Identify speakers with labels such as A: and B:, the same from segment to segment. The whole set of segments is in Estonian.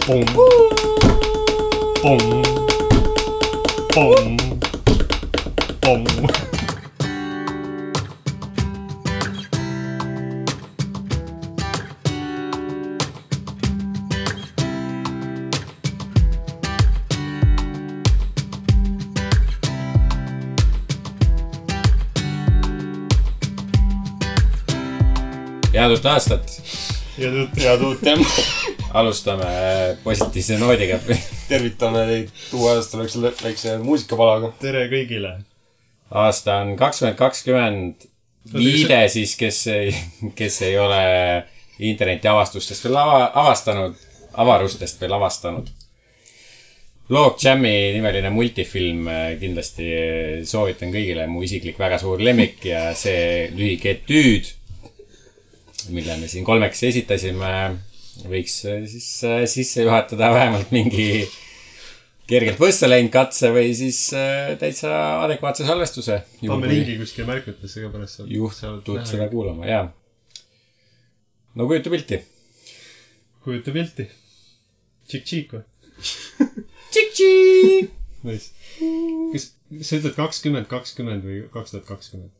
A: Pong. Pong. Pong. Pong.
B: Head uut aastat.
A: Head uut tempo.
B: Alustame positiivse noodiga.
A: Tervitame teid uue aasta väikse muusikapalaga. Tere kõigile.
B: Aasta on 2020. Viide siis, kes ei ole interneti avastustest veel avastanud, avarustest veel avastanud. Log Jam'i nimeline multifilm kindlasti soovitan kõigile. Mu isiklik väga suur lemmik ja see lühike etüüd, mille me siin kolmeks esitasime, võiks siis sisse juhatada vähemalt mingi kergelt võssa läinud katse või siis täitsa adekvaatse salvestuse.
A: Pamme lingi kuskil märkutesse ka pärast.
B: Juhtud seda kuulama, jaa. No kujuta pilti. Kujuta pilti. Tšik-tšik või? Tšik-tšik!
A: Kas sa ütled 2020 või 2020?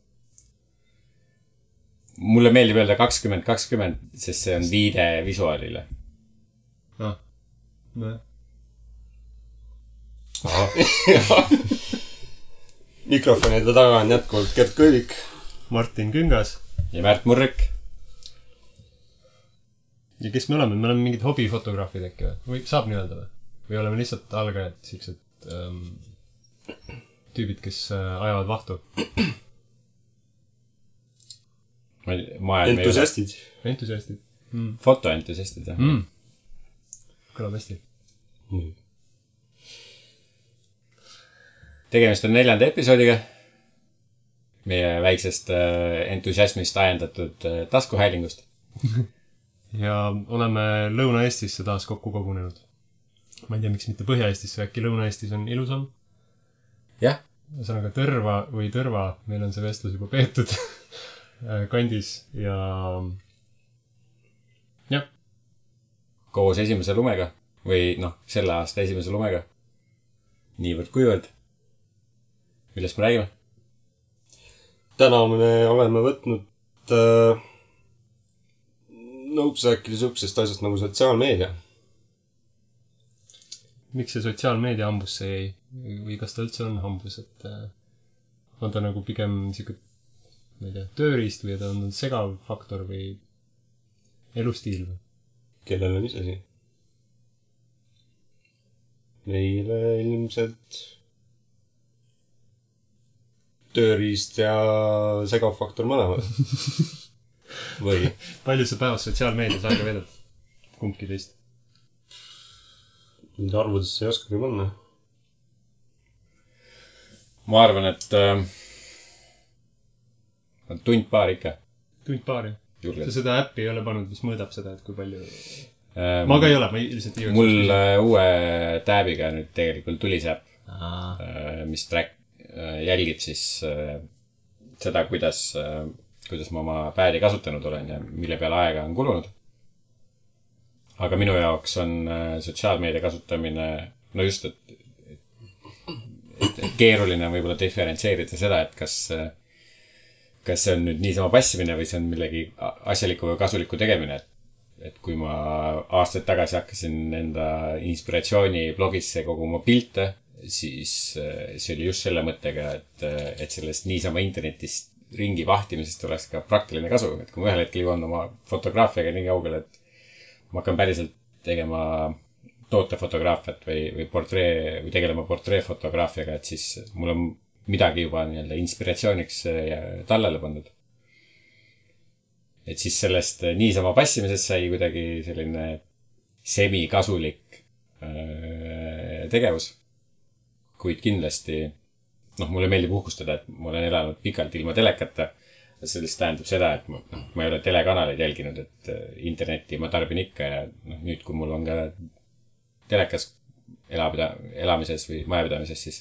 B: Mulle meeldib öelda 2020, sest see on viide visuaalile.
A: Mikrofonide taga on jätkuvalt Gert Kõivik, Martin Küngas
B: ja Märt Murrik.
A: Ja kes me oleme? Me oleme mingid hobifotograafid äkki või? Saab nii öelda või? Või oleme lihtsalt algajad, siuksed tüübid, kes ajavad vahtu? Entusiastid. Entusiastid.
B: Fotoentusiastid, jah.
A: Kõlab hästi.
B: Tegemist on 4. episoodiga. Meie väiksest entusiasmist ajendatud taskuhäälingust.
A: Ja oleme Lõuna-Eestisse taas kokku kogunenud. Ma ei tea, miks mitte Põhja-Eestisse, äkki Lõuna-Eestis on ilusam.
B: Jah.
A: Ühesõnaga Tõrva või Tõrva, meil on see vestlus juba peetud kandis ja jah.
B: Koos esimese lumega või selle aasta esimese lumega. Niivõrd kuivõrd. Millest me räägime?
A: Täna me oleme võtnud nõuks rääkida sihukesest asjast nagu sotsiaalmeedia. Miks see sotsiaalmeedia hambusse jäi? Või kas ta üldse on hambus? Et on ta nagu pigem sihuke ma ei tea, tööriist või ta on segav faktor või elustiil või? Kellel on isegi? Meile ilmselt tööriist ja segav faktor mõlemad. Või? Palju sa päevas sotsiaalmeedias aega vedad? Kumbki teist? Nüüd arvudesse ei oskagi panna.
B: Ma arvan, et tund paar ikka.
A: Tund paar, jah. Sa seda äppi ei ole pannud, mis mõõdab seda, et kui palju... Ma ka ei ole, ma lihtsalt ei
B: mul uue tääbiga nüüd tegelikult tuli see äpp, mis jälgib siis seda, kuidas ma oma päedi kasutanud olen ja mille peale aega on kulunud. Aga minu jaoks on sotsiaalmeedia kasutamine, no just, et keeruline võib-olla diferentseerida seda, et kas see on nüüd niisama passimine või see on millegi asjaliku või kasuliku tegemine. Et kui ma aastaid tagasi hakkasin enda inspiratsiooni blogisse koguma pilte, siis see oli just selle mõttega, et sellest niisama internetist ringi vahtimisest oleks ka praktiline kasu. Et kui ma ühel hetkel jõuan oma fotograafiaga nii kaugele, et ma hakkan päriselt tegema tootefotograafiat või tegelema portreefotograafiaga, et siis mul on midagi juba inspiratsiooniks tallele pandud. Et siis sellest niisama passimisest sai kuidagi selline semikasulik tegevus. Kuid kindlasti, mulle meeldib uhkustada, et ma olen elanud pikalt ilma telekata. Sellest tähendab seda, et ma ei ole telekanaleid jälginud, et internetti ma tarbin ikka ja nüüd, kui mul on ka telekas elamises või majapidamises, siis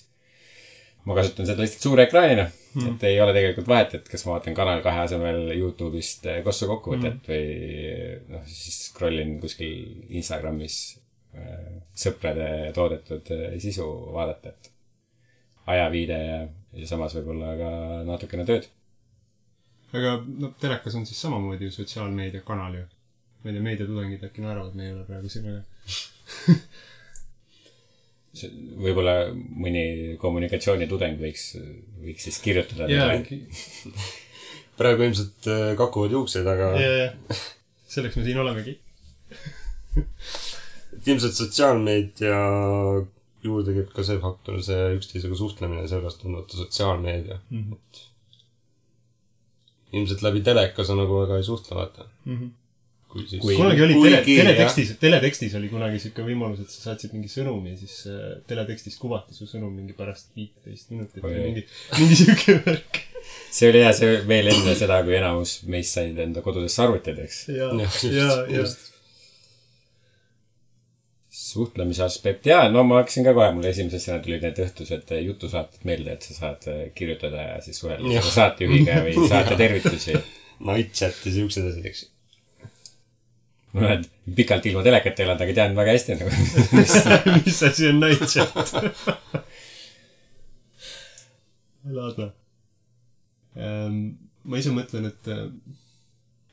B: ma kasutan seda lihtsalt suure ekraanina, et ei ole tegelikult vahet, et kas ma vaatan Kanal 2 asemel YouTube'ist kossu kokkuvõtet või siis scrollin kuskil Instagramis sõprade toodetud sisu vaadata, et ajaviide ja samas võib-olla ka natukene tööd.
A: Aga no telekas on siis samamoodi ju sotsiaalmeediakanal ju. Ma ei tea, meediatudengid äkki naeravad, me ei ole praegu siin, aga
B: võib-olla mõni kommunikatsioonitudeng võiks siis kirjutada.
C: Praegu ilmselt kakuvad juukseid, aga
A: selleks me siin olemegi.
C: Ilmselt sotsiaalmeedia juurde käib ka see faktor, see üksteisega suhtlemine, sellepärast on võtta sotsiaalmeedia. Ilmselt läbi teleka sa nagu väga ei suhtle, vaata.
A: Kunagi oli teletekstis oli kunagi siuke võimalus, et sa saatsid mingi sõnumi ja siis teletekstis kuvati su sõnum mingi pärast 15 minutit või mingi siuke värk.
B: See oli hea, see veel enne seda, kui enamus meist said enda kodudesse arvutid, eks.
A: Ja.
B: Suhtlemise aspekt. Jaa, no ma hakkasin ka kohe, mulle esimesena tulid need õhtused jutusaated meelde, et sa saad kirjutada ja siis suhelda saatejuhiga või saate tervitusi.
C: Night chat ja siuksed asjad, eks.
B: Ma olen pikalt ilma telekat elanud, aga tean väga hästi nagu.
A: Mis asi on night chat? Laadna. Ma ise mõtlen, et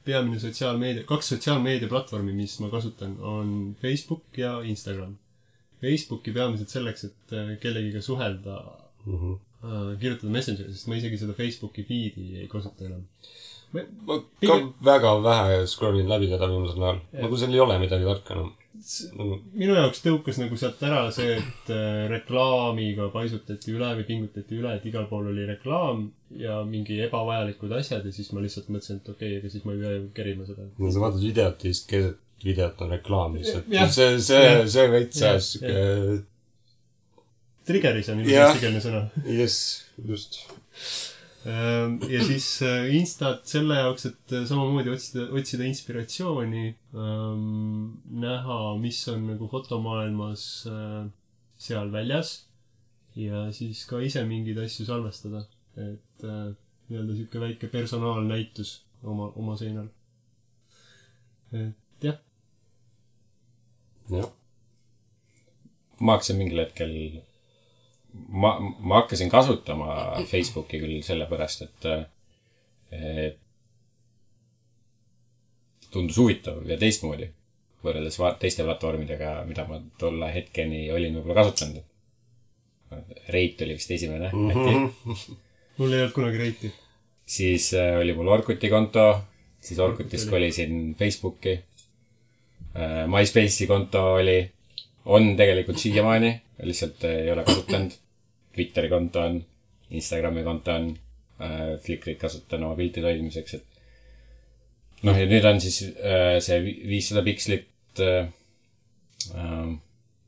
A: peamine sotsiaalmeedia, 2 sotsiaalmeedia platvormi, mis ma kasutan, on Facebook ja Instagram. Facebooki peamiselt selleks, et kellegiga suhelda, kirjutada Messengeri, sest ma isegi seda Facebooki feedi ei kasuta enam.
C: Ma ka väga vähe scrollin läbi seda viimasel näol. Nagu seal ei ole midagi tarka enam.
A: Minu jaoks tõukas nagu sealt ära see, et reklaamiga paisutati üle või pingutati üle, et igal pool oli reklaam ja mingi ebavajalikud asjad ja siis ma lihtsalt mõtlesin, et okei, aga siis ma ei pea kerima seda.
C: No sa vaatad videot ja siis keset videot on reklaam lihtsalt. See veits siuke...
A: Triggeris on ilus eestikeelne sõna.
C: Yes, just.
A: Ja siis Instat selle jaoks, et samamoodi otsida inspiratsiooni, näha, mis on nagu fotomaailmas seal väljas ja siis ka ise mingeid asju salvestada, et nii-öelda siuke väike personaalnäitus oma seinal. Et jah.
B: Ma hakkasin mingil hetkel ma hakkasin kasutama Facebooki küll sellepärast, et tundus huvitav ja teistmoodi võrreldes teiste platvormidega, mida ma tolle hetkeni olin võib-olla kasutanud. Reit oli vist esimene.
A: Mul ei olnud kunagi Reiti.
B: Siis oli mul Orkuti konto, siis Orkutist kolisin Facebooki. MySpace'i konto on tegelikult siiamaani, lihtsalt ei ole kasutanud. Twitteri konto on, Instagrami konto on, Flickrit kasutan oma piltide hoidmiseks, et ja nüüd on siis see 500 pikslit,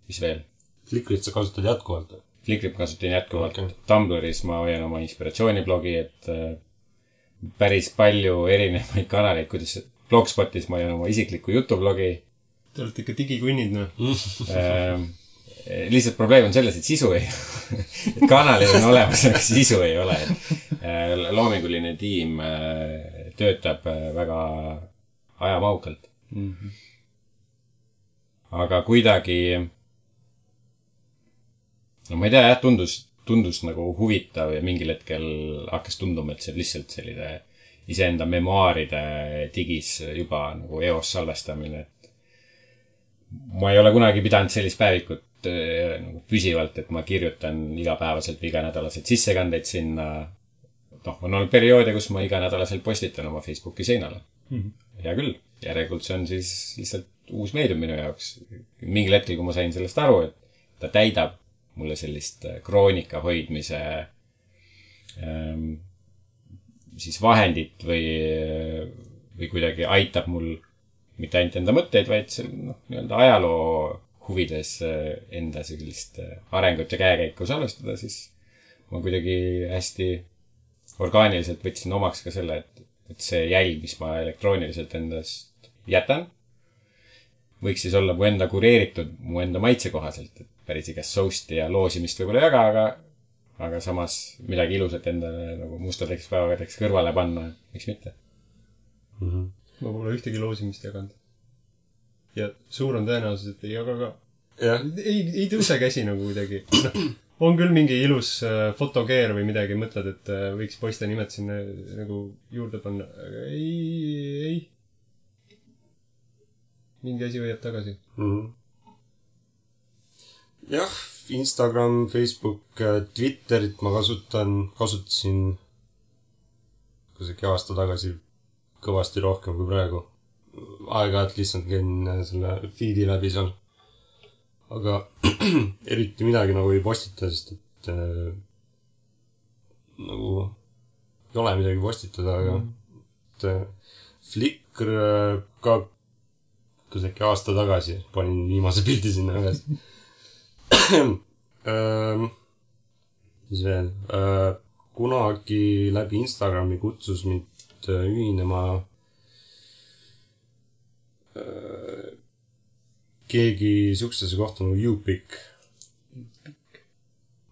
B: mis veel?
C: Flickrit sa kasutad jätkuvalt?
B: Flickrit kasutan jätkuvalt. Okay. Tumblris ma hoian oma inspiratsiooniblogi, et päris palju erinevaid kanaleid, kuidas Blogspotis ma hoian oma isiklikku jutublogi.
A: Te olete ikka digikunnid, noh.
B: Lihtsalt probleem on selles, et sisu ei et kanalid on olemas, aga sisu ei ole. Loominguline tiim töötab väga ajamaukalt. Aga kuidagi ma ei tea, tundus nagu huvitav ja mingil hetkel hakkas tunduma, et see lihtsalt selline iseenda memuaaride digis juba nagu eos salvestamine. Ma ei ole kunagi pidanud sellist päevikut nagu püsivalt, et ma kirjutan igapäevaselt või iganädalaselt sissekandeid sinna. On olnud perioode, kus ma iganädalaselt postitan oma Facebooki seinale. Hea küll. Järelikult see on siis lihtsalt uus meedium minu jaoks. Mingil hetkel, kui ma sain sellest aru, et ta täidab mulle sellist kroonika hoidmise siis vahendit või kuidagi aitab mul mitte ainult enda mõtteid, vaid nii-öelda ajaloo huvides enda sellist arengut ja käekäiku salvestada, siis ma kuidagi hästi orgaaniliselt võtsin omaks ka selle, et see jälg, mis ma elektrooniliselt endast jätan, võiks siis olla mu enda kureeritud, mu enda maitse kohaselt, et päris igast sousti ja loosimist võib-olla jaga, aga samas midagi ilusat endale nagu mustadeks päevadeks kõrvale panna, miks mitte.
A: Ma pole ühtegi loosimist jaganud. Ja suur on tõenäosus, et ei jaga ka. ei tõuse käsi nagu kuidagi. On küll mingi ilus fotogear või midagi, mõtled, et võiks poiste nimed sinna nagu juurde panna. Aga ei. Mingi asi hoiab tagasi.
C: Jah, Instagram, Facebook, Twitterit ma kasutasin kusagil aasta tagasi kõvasti rohkem kui praegu. Aeg-ajalt lihtsalt käin selle feedi läbi seal. Aga eriti midagi nagu ei postita, sest et nagu ei ole midagi postitada, aga Flickr ka kusagil aasta tagasi panin viimase pildi sinna üles. Mis veel? Kunagi läbi Instagrami kutsus mind ühinema keegi suksese kohta nagu YouPic.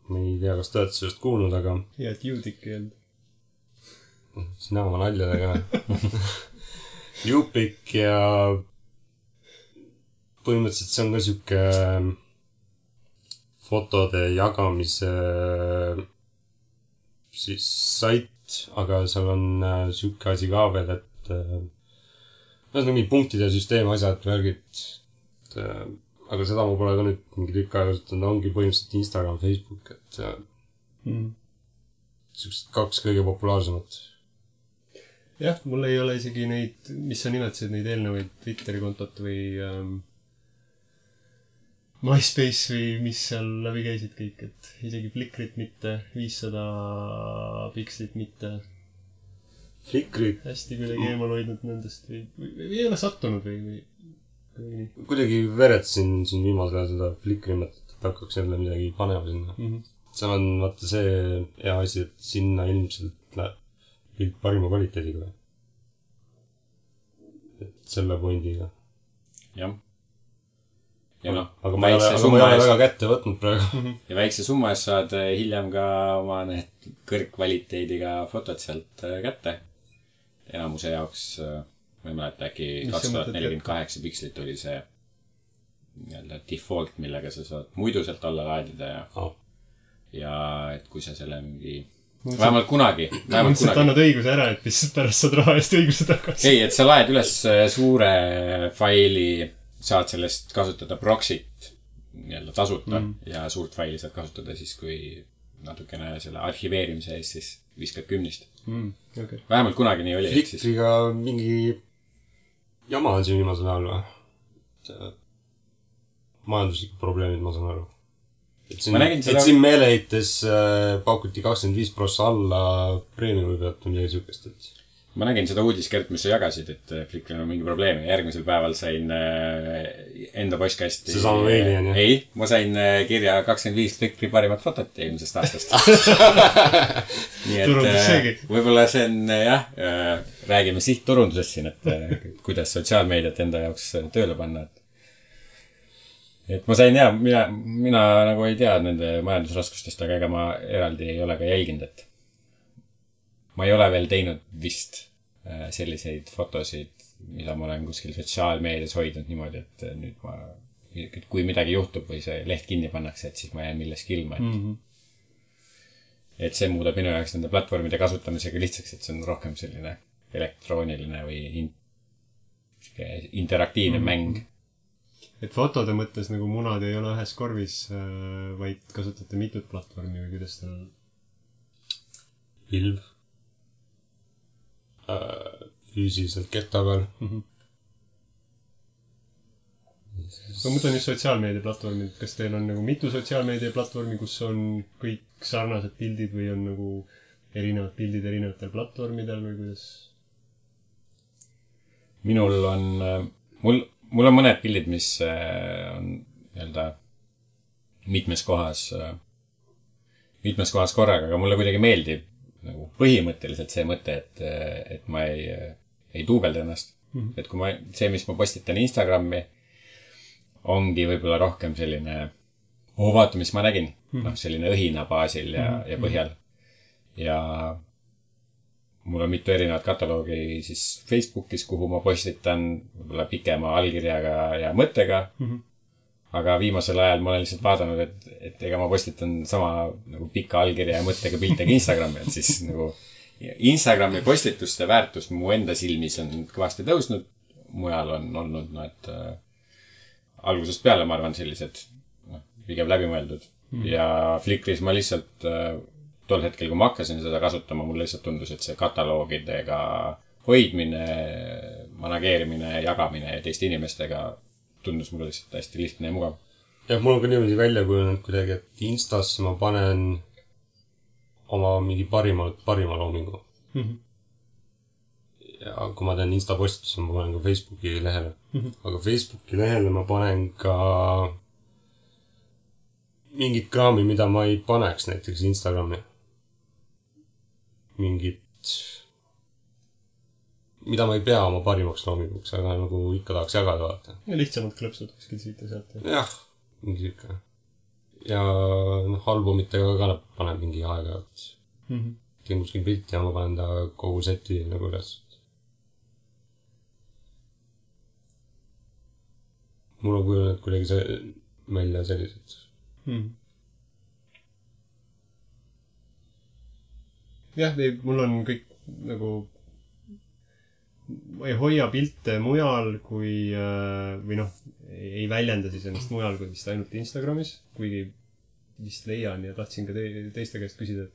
C: Ma ei tea, kas te olete sellest kuulnud, aga...
A: Ja, et YouDick ei olnud.
C: Sina oma naljadega. YouPic ja põhimõtteliselt see on ka siuke fotode jagamise siis sait, aga seal on siuke asi ka veel, et on mingi punktide süsteem, asjad, värgid. Aga seda ma pole ka nüüd mingi tükk aega kasutanud, ongi põhimõtteliselt Instagram, Facebook, et siuksed 2 kõige populaarsemat.
A: Jah, mul ei ole isegi neid, mis sa nimetasid, neid eelnevaid Twitteri kontot või MySpace või mis seal läbi käisid kõik, et isegi Flickrit mitte, 500 pikslit mitte.
C: Flickrit?
A: Hästi kuidagi eemal hoidnud nendest või ei ole sattunud või
C: kuidagi veretsin siin viimasel ajal seda Flickri mõtet, et hakkaks jälle midagi panema sinna. Seal on vaata see hea asi, et sinna ilmselt läheb pilt parima kvaliteediga. Et selle pointiga.
B: Jah. Ja noh,
C: aga ma ei ole väga kätte võtnud praegu.
B: Ja väikse summa eest saad hiljem ka oma need kõrgkvaliteediga fotod sealt kätte. Enamuse jaoks, ma ei mäleta, äkki 2048 pikslit oli see default, millega sa saad muidu sealt alla laadida ja et kui sa selle mingi vähemalt kunagi
A: mõtlesid, annad õiguse ära, et lihtsalt pärast saad raha eest õiguse tagasi.
B: Ei, et sa laed üles suure faili, saad sellest kasutada proxy't tasuta ja suurt faili saad kasutada siis, kui natukene selle arhiveerimise eest siis viskad 10.
A: Okay.
B: Vähemalt kunagi nii oli.
C: Flickriga mingi jama on siin viimasel ajal või? Majanduslikud probleemid, ma saan aru. Et siin meeleheites paukuti 25% alla preemiumi pealt või midagi sihukest, et...
B: Ma nägin seda uudiskert, mis sa jagasid, et Flickril on mingi probleem ja järgmisel päeval sain enda postkasti...
C: See sama meili on, jah?
B: Ei, ma sain kirja 25 Flickri parimat fotot eelmisest aastast. Nii et võib-olla see on, jah, räägime sihtturundusest siin, et kuidas sotsiaalmeediat enda jaoks tööle panna. Et ma sain, jah, mina nagu ei tea nende majandusraskustest, aga ega ma eraldi ei ole ka jälginud, et ma ei ole veel teinud vist selliseid fotosid, mida ma olen kuskil sotsiaalmeedias hoidnud niimoodi, et nüüd kui midagi juhtub või see leht kinni pannakse, et siis ma jään milleski ilma. Et see muudab minu jaoks nende platvormide kasutamisega lihtsaks, et see on rohkem selline elektrooniline või interaktiivne mäng.
A: Et fotode mõttes nagu munad ei ole ühes korvis, vaid kasutate mitut platvormi või kuidas tal...
C: Pilv. Füüsiliselt kehta peal.
A: Ma mõtlen just sotsiaalmeedia platvormid. Kas teil on nagu mitu sotsiaalmeedia platvormi, kus on kõik sarnased pildid või on nagu erinevad pildid erinevatel platvormidel või kuidas?
B: Minul on... Mul on mõned pildid, mis on mitmes kohas korraga, aga mulle kuidagi meeldib nagu põhimõtteliselt see mõte, et ma ei duubelda ennast. Et kui mis ma postitan Instagrami, ongi võib-olla rohkem selline, vaata, mis ma nägin. Selline õhina baasil ja põhjal. Ja mul on mitu erinevat kataloogi siis Facebookis, kuhu ma postitan võib-olla pikema allkirjaga ja mõttega. aga viimasel ajal ma olen lihtsalt vaadanud, et ega ma postitan sama nagu pika allkirja ja mõttega pilte ka Instagrami, et siis nagu Instagrami postituste väärtus mu enda silmis on kõvasti tõusnud. Mujal on olnud, et algusest peale ma arvan sellised pigem läbimõeldud. Ja Flickris ma lihtsalt tol hetkel, kui ma hakkasin seda kasutama, mul lihtsalt tundus, et see kataloogidega hoidmine, manageerimine, jagamine teiste inimestega tundus mulle lihtsalt hästi lihtne ja mugav.
C: Jah, mul on ka niimoodi välja kujunenud kuidagi, et Instasse ma panen oma mingi parima loomingu. Ja kui ma teen Insta postitusse, ma panen ka Facebooki lehele. Aga Facebooki lehele ma panen ka mingit kraami, mida ma ei paneks näiteks Instagrami. Mida ma ei pea oma parimaks loominguks, aga nagu ikka tahaks jagada vaata.
A: Ja lihtsamalt klõpsud kuskil siit ja sealt.
C: Jah, mingi siuke. Ja albumitega ka panen mingi aega. Teen kuskil pilti ja ma panen ta kogu seti nagu üles. Mul on kujunenud kuidagi välja sellised.
A: Jah, mul on kõik nagu ma ei hoia pilte mujal kui või ei väljenda siis ennast mujal kui vist ainult Instagramis, kuigi vist leian ja tahtsin ka teiste käest küsida,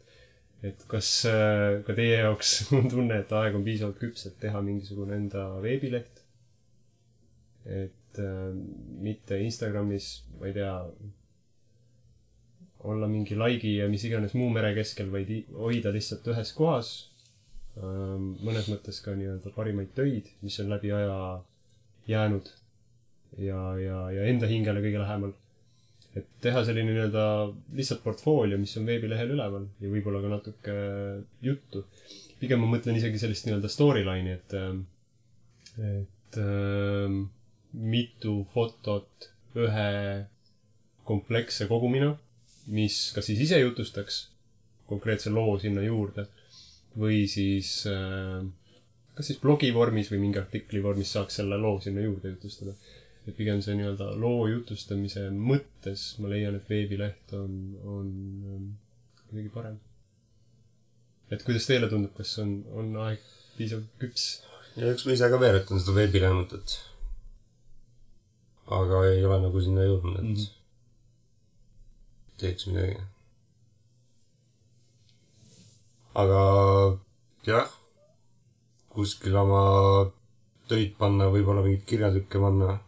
A: et kas ka teie jaoks on tunne, et aeg on piisavalt küps, et teha mingisugune enda veebileht, et mitte Instagramis, ma ei tea, olla mingi laigi ja mis iganes muu mere keskel, vaid hoida lihtsalt ühes kohas. Mõnes mõttes ka nii-öelda parimaid töid, mis on läbi aja jäänud ja enda hingele kõige lähemal. Et teha selline nii-öelda lihtsalt portfoolio, mis on veebilehel üleval ja võib-olla ka natuke juttu. Pigem ma mõtlen isegi sellist nii-öelda storyline'i, et mitu fotot ühe kompleksse kogumina, mis kas siis ise jutustaks konkreetse loo sinna juurde või siis kas siis blogi vormis või mingi artikli vormis saaks selle loo sinna juurde jutustada. Et pigem see nii-öelda loo jutustamise mõttes ma leian, et veebileht on kuidagi parem. Et kuidas teile tundub, kas on aeg piisav küps?
C: Ja üks ma ise ka veeretan seda veebilehe mõtet. Aga ei ole nagu sinna jõudnud, et teeks midagi. Aga jah, kuskil oma töid panna, võib-olla mingid kirjatükke panna,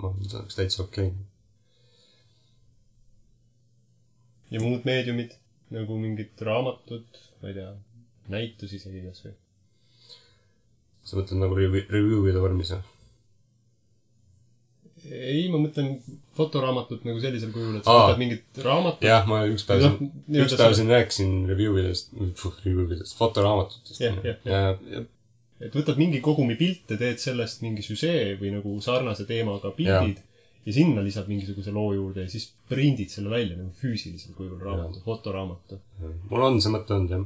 C: ma oleks täitsa okei.
A: Ja muud meediumid, nagu mingid raamatud, ma ei tea, näitus isegi kas või?
C: Sa mõtled nagu review'ide vormis, jah?
A: Ei, ma mõtlen fotoraamatut nagu sellisel kujul, et sa võtad mingit raamatut.
C: Jah, ma üks päev siin rääkisin review'idest, fotoraamatutest.
A: Ja. Et võtad mingi kogumi pilte, teed sellest mingi süsee või nagu sarnase teemaga pildid ja sinna lisad mingisuguse loo juurde ja siis prindid selle välja nagu füüsilisel kujul raamatu, fotoraamatu.
C: Mul on see mõte olnud, jah.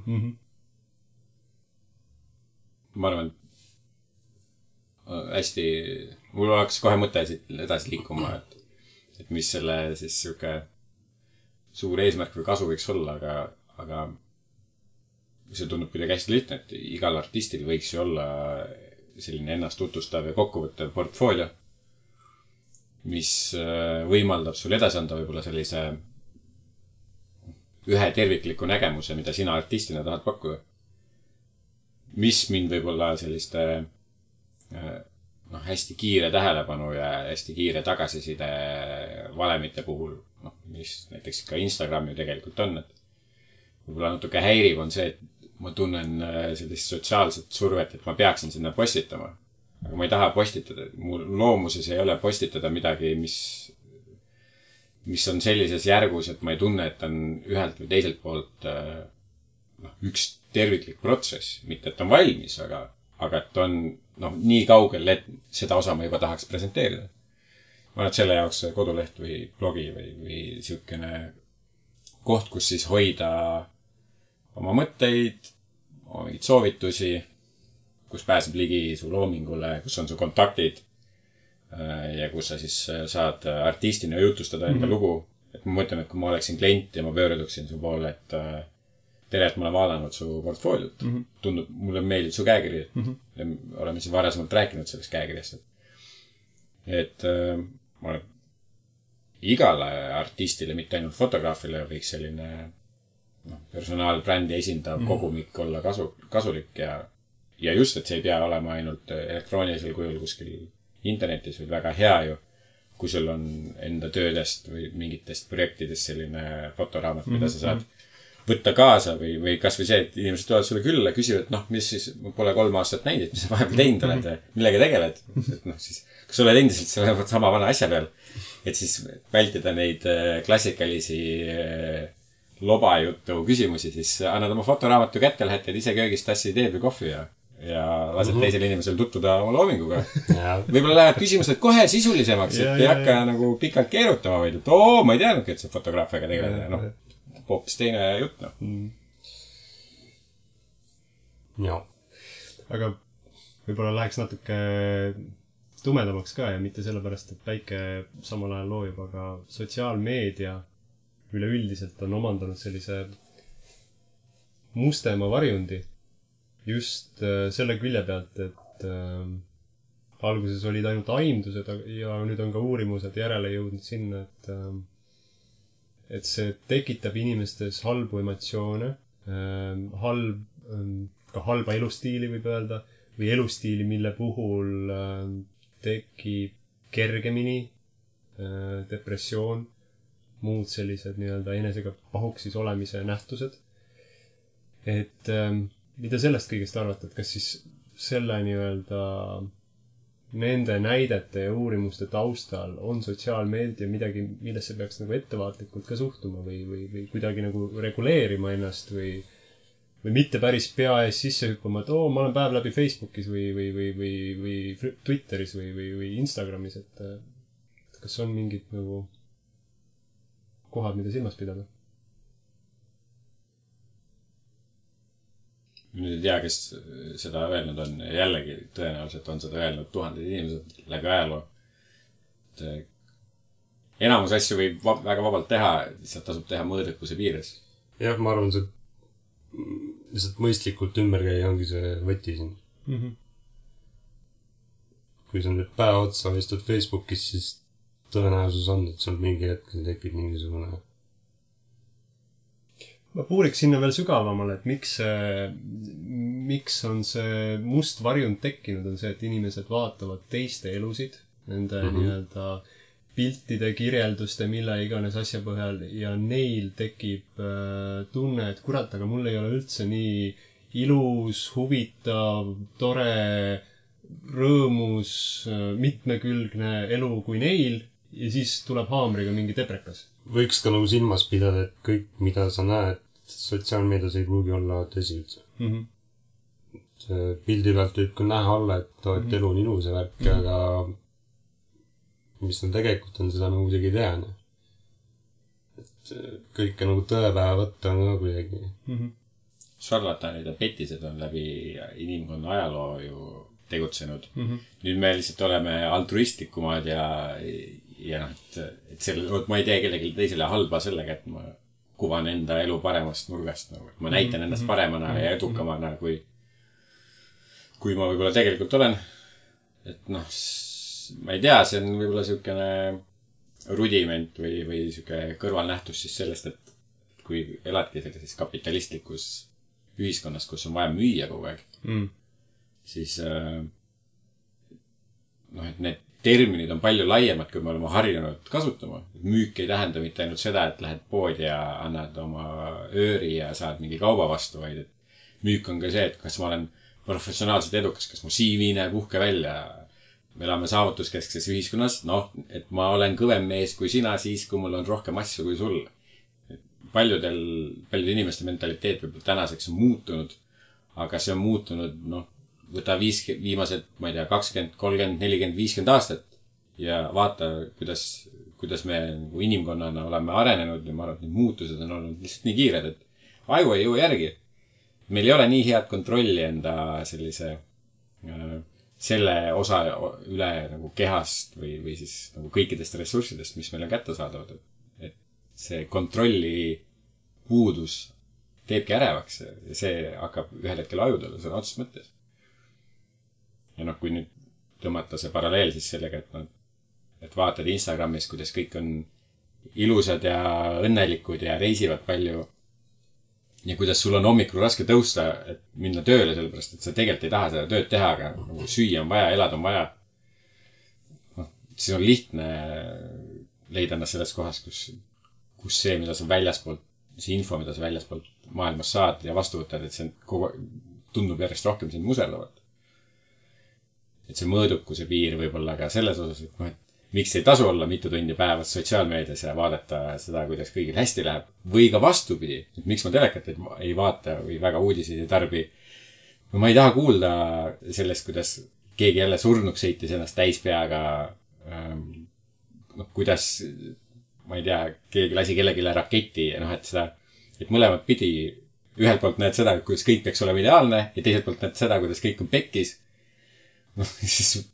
B: Ma arvan, hästi, mul oleks kohe mõte siit edasi liikuma, et mis selle siis siuke suur eesmärk või kasu võiks olla, aga see tundub kuidagi hästi lihtne, et igal artistil võiks ju olla selline ennast tutvustav ja kokkuvõttev portfoolio, mis võimaldab sul edasi anda võib-olla sellise ühe tervikliku nägemuse, mida sina artistina tahad pakkuda. Mis mind võib-olla selliste hästi kiire tähelepanu ja hästi kiire tagasiside valemite puhul, mis näiteks ka Instagram ju tegelikult on, et võib-olla natuke häiriv on see, et ma tunnen sellist sotsiaalset survet, et ma peaksin sinna postitama. Aga ma ei taha postitada. Mu loomuses ei ole postitada midagi, mis on sellises järgus, et ma ei tunne, et on ühelt või teiselt poolt üks terviklik protsess. Mitte, et on valmis, aga et on nii kaugel, et seda osa ma juba tahaks presenteerida. Ma olen selle jaoks koduleht või blogi või siukene koht, kus siis hoida oma mõtteid, oma mingid soovitusi, kus pääseb ligi su loomingule, kus on su kontaktid, ja kus sa siis saad artistina jutustada enda lugu. Et ma mõtlen, et kui ma oleksin klient ja ma pöörduksin su poole, et tere, et ma olen vaadanud su portfooliot. Tundub, mulle meeldib su käekiri. Ja oleme siin varasemalt rääkinud sellest käekirjast. Et ma olen igale artistile, mitte ainult fotograafile, võiks selline personaalbrändi esindav kogumik olla kasulik ja just, et see ei pea olema ainult elektroonilisel kujul kuskil internetis, või väga hea ju, kui sul on enda töödest või mingitest projektidest selline fotoraamat, mida sa saad võtta kaasa või kas või see, et inimesed tulevad sulle külla ja küsivad, mis siis, ma pole 3 aastat näinud, mis sa vahepeal teinud oled ja millega tegeled. Et siis, kas sa oled endiselt selle sama vana asja peal, et siis vältida neid klassikalisi lobajutu küsimusi, siis annad oma fotoraamatu kätte, lähed teed ise köögist tassi teed või kohvi ja lased teisel inimesel tutvuda oma loominguga. Võib-olla lähevad küsimused kohe sisulisemaks, et ei hakka nagu pikalt keerutama, vaid et ma ei teadnudki, et sa fotograafiaga tegeled. Hoopis teine jutt,
C: Jaa.
A: Aga võib-olla läheks natuke tumedamaks ka ja mitte sellepärast, et päike samal ajal loojub, aga sotsiaalmeedia üleüldiselt on omandanud sellise mustema varjundi just selle külje pealt, et alguses olid ainult aimdused ja nüüd on ka uurimused järele jõudnud sinna, et see tekitab inimestes halbu emotsioone, ka halba elustiili võib öelda, või elustiili, mille puhul tekib kergemini depressioon, muud sellised nii-öelda enesega pahuksis olemise nähtused. Et mida sellest kõigest arvata, et kas siis selle nii-öelda nende näidete ja uurimuste taustal on sotsiaalmeedia midagi, millesse peaks nagu ettevaatlikult ka suhtuma või kuidagi nagu reguleerima ennast või mitte päris pea ees sisse hüppama, et ma olen päev läbi Facebookis või Twitteris või Instagramis, et kas on mingid nagu kohad, mida silmas pidada?
B: Nüüd ei tea, kes seda öelnud on. Jällegi tõenäoliselt on seda öelnud tuhanded inimesed läbi ajaloo. Enamus asju võib väga vabalt teha, lihtsalt tasub teha mõõdukuse piires.
C: Jah, ma arvan, see lihtsalt mõistlikult ümber käia ongi see võti siin. Kui sa nüüd päeva otsa istud Facebookis, siis tõenäosus on, et sul mingi hetkel tekib mingisugune.
A: Ma puuriks sinna veel sügavamale, et miks on see must varjund tekkinud, on see, et inimesed vaatavad teiste elusid, nende nii-öelda piltide, kirjelduste, mille iganes asja põhjal ja neil tekib tunne, et kurat, aga mul ei ole üldse nii ilus, huvitav, tore, rõõmus, mitmekülgne elu kui neil ja siis tuleb haamriga mingi deprekas.
C: Võiks ka nagu silmas pidada, et kõik, mida sa näed sotsiaalmeedias ei pruugi olla tõsi üldse. Pildi pealt võib ka näha olla, et elu on ilus ja värk, aga mis tal tegelikult on, seda nagu kuidagi ei tea. Et kõike nagu tõepäeva võtta on ka kuidagi.
B: Šarlatanid ja petised on läbi inimkonna ajaloo ju tegutsenud. Nüüd me lihtsalt oleme altruistlikumad ja ma ei tee kellelegi teisele halba sellega, et ma kuvan enda elu paremast nurgast. Ma näitan ennast paremana ja edukamana, kui ma võib-olla tegelikult olen. Et ma ei tea, see on võib-olla siukene rudiment või siuke kõrvalnähtus siis sellest, et kui eladki sellises kapitalistlikus ühiskonnas, kus on vaja müüa kogu aeg, siis et need terminid on palju laiemad, kui me oleme harjunud kasutama. Müük ei tähenda mitte ainult seda, et lähed poodi ja annad oma ööri ja saad mingi kauba vastu, vaid et müük on ka see, et kas ma olen professionaalselt edukas, kas mu CV näeb uhke välja. Me elame saavutuskeskses ühiskonnas, et ma olen kõvem mees kui sina siis, kui mul on rohkem asju kui sul. Paljudel inimeste mentaliteet võib tänaseks on muutunud, aga see on muutunud, võta viimased, ma ei tea, 20, 30, 40, 50 aastat ja vaata, kuidas me inimkonnana oleme arenenud ja ma arvan, et need muutused on olnud lihtsalt nii kiired, et aju ei jõua järgi. Meil ei ole nii head kontrolli enda sellise selle osa üle nagu kehast või siis nagu kõikidest ressurssidest, mis meil on kättesaadavad. Et see kontrolli puudus teebki ärevaks ja see hakkab ühel hetkel ajudele sõna otseses mõttes. Ja kui nüüd tõmmata see paralleel siis sellega, et vaatad Instagramis, kuidas kõik on ilusad ja õnnelikud ja reisivad palju ja kuidas sul on hommikul raske tõusta, et minna tööle, sellepärast, et sa tegelikult ei taha seda tööd teha, aga nagu süüa on vaja, elada on vaja. Siis on lihtne leida ennast selles kohas, kus see, mida sa väljaspoolt, see info, mida sa väljaspoolt maailmas saad ja vastu võtad, et see tundub järjest rohkem sind muserdavat. Et see mõõdukuse piir võib-olla ka selles osas, et miks ei tasu olla mitu tundi päevas sotsiaalmeedias ja vaadata seda, kuidas kõigil hästi läheb. Või ka vastupidi, et miks ma telekat ei vaata või väga uudiseid ei tarbi. Ma ei taha kuulda sellest, kuidas keegi jälle surnuks sõitis ennast täispeaga. Kuidas, ma ei tea, keegi lasi kellelegi raketi ja et mõlemad pidi ühelt poolt näed seda, kuidas kõik peaks olema ideaalne ja teiselt poolt näed seda, kuidas kõik on pekkis. Siis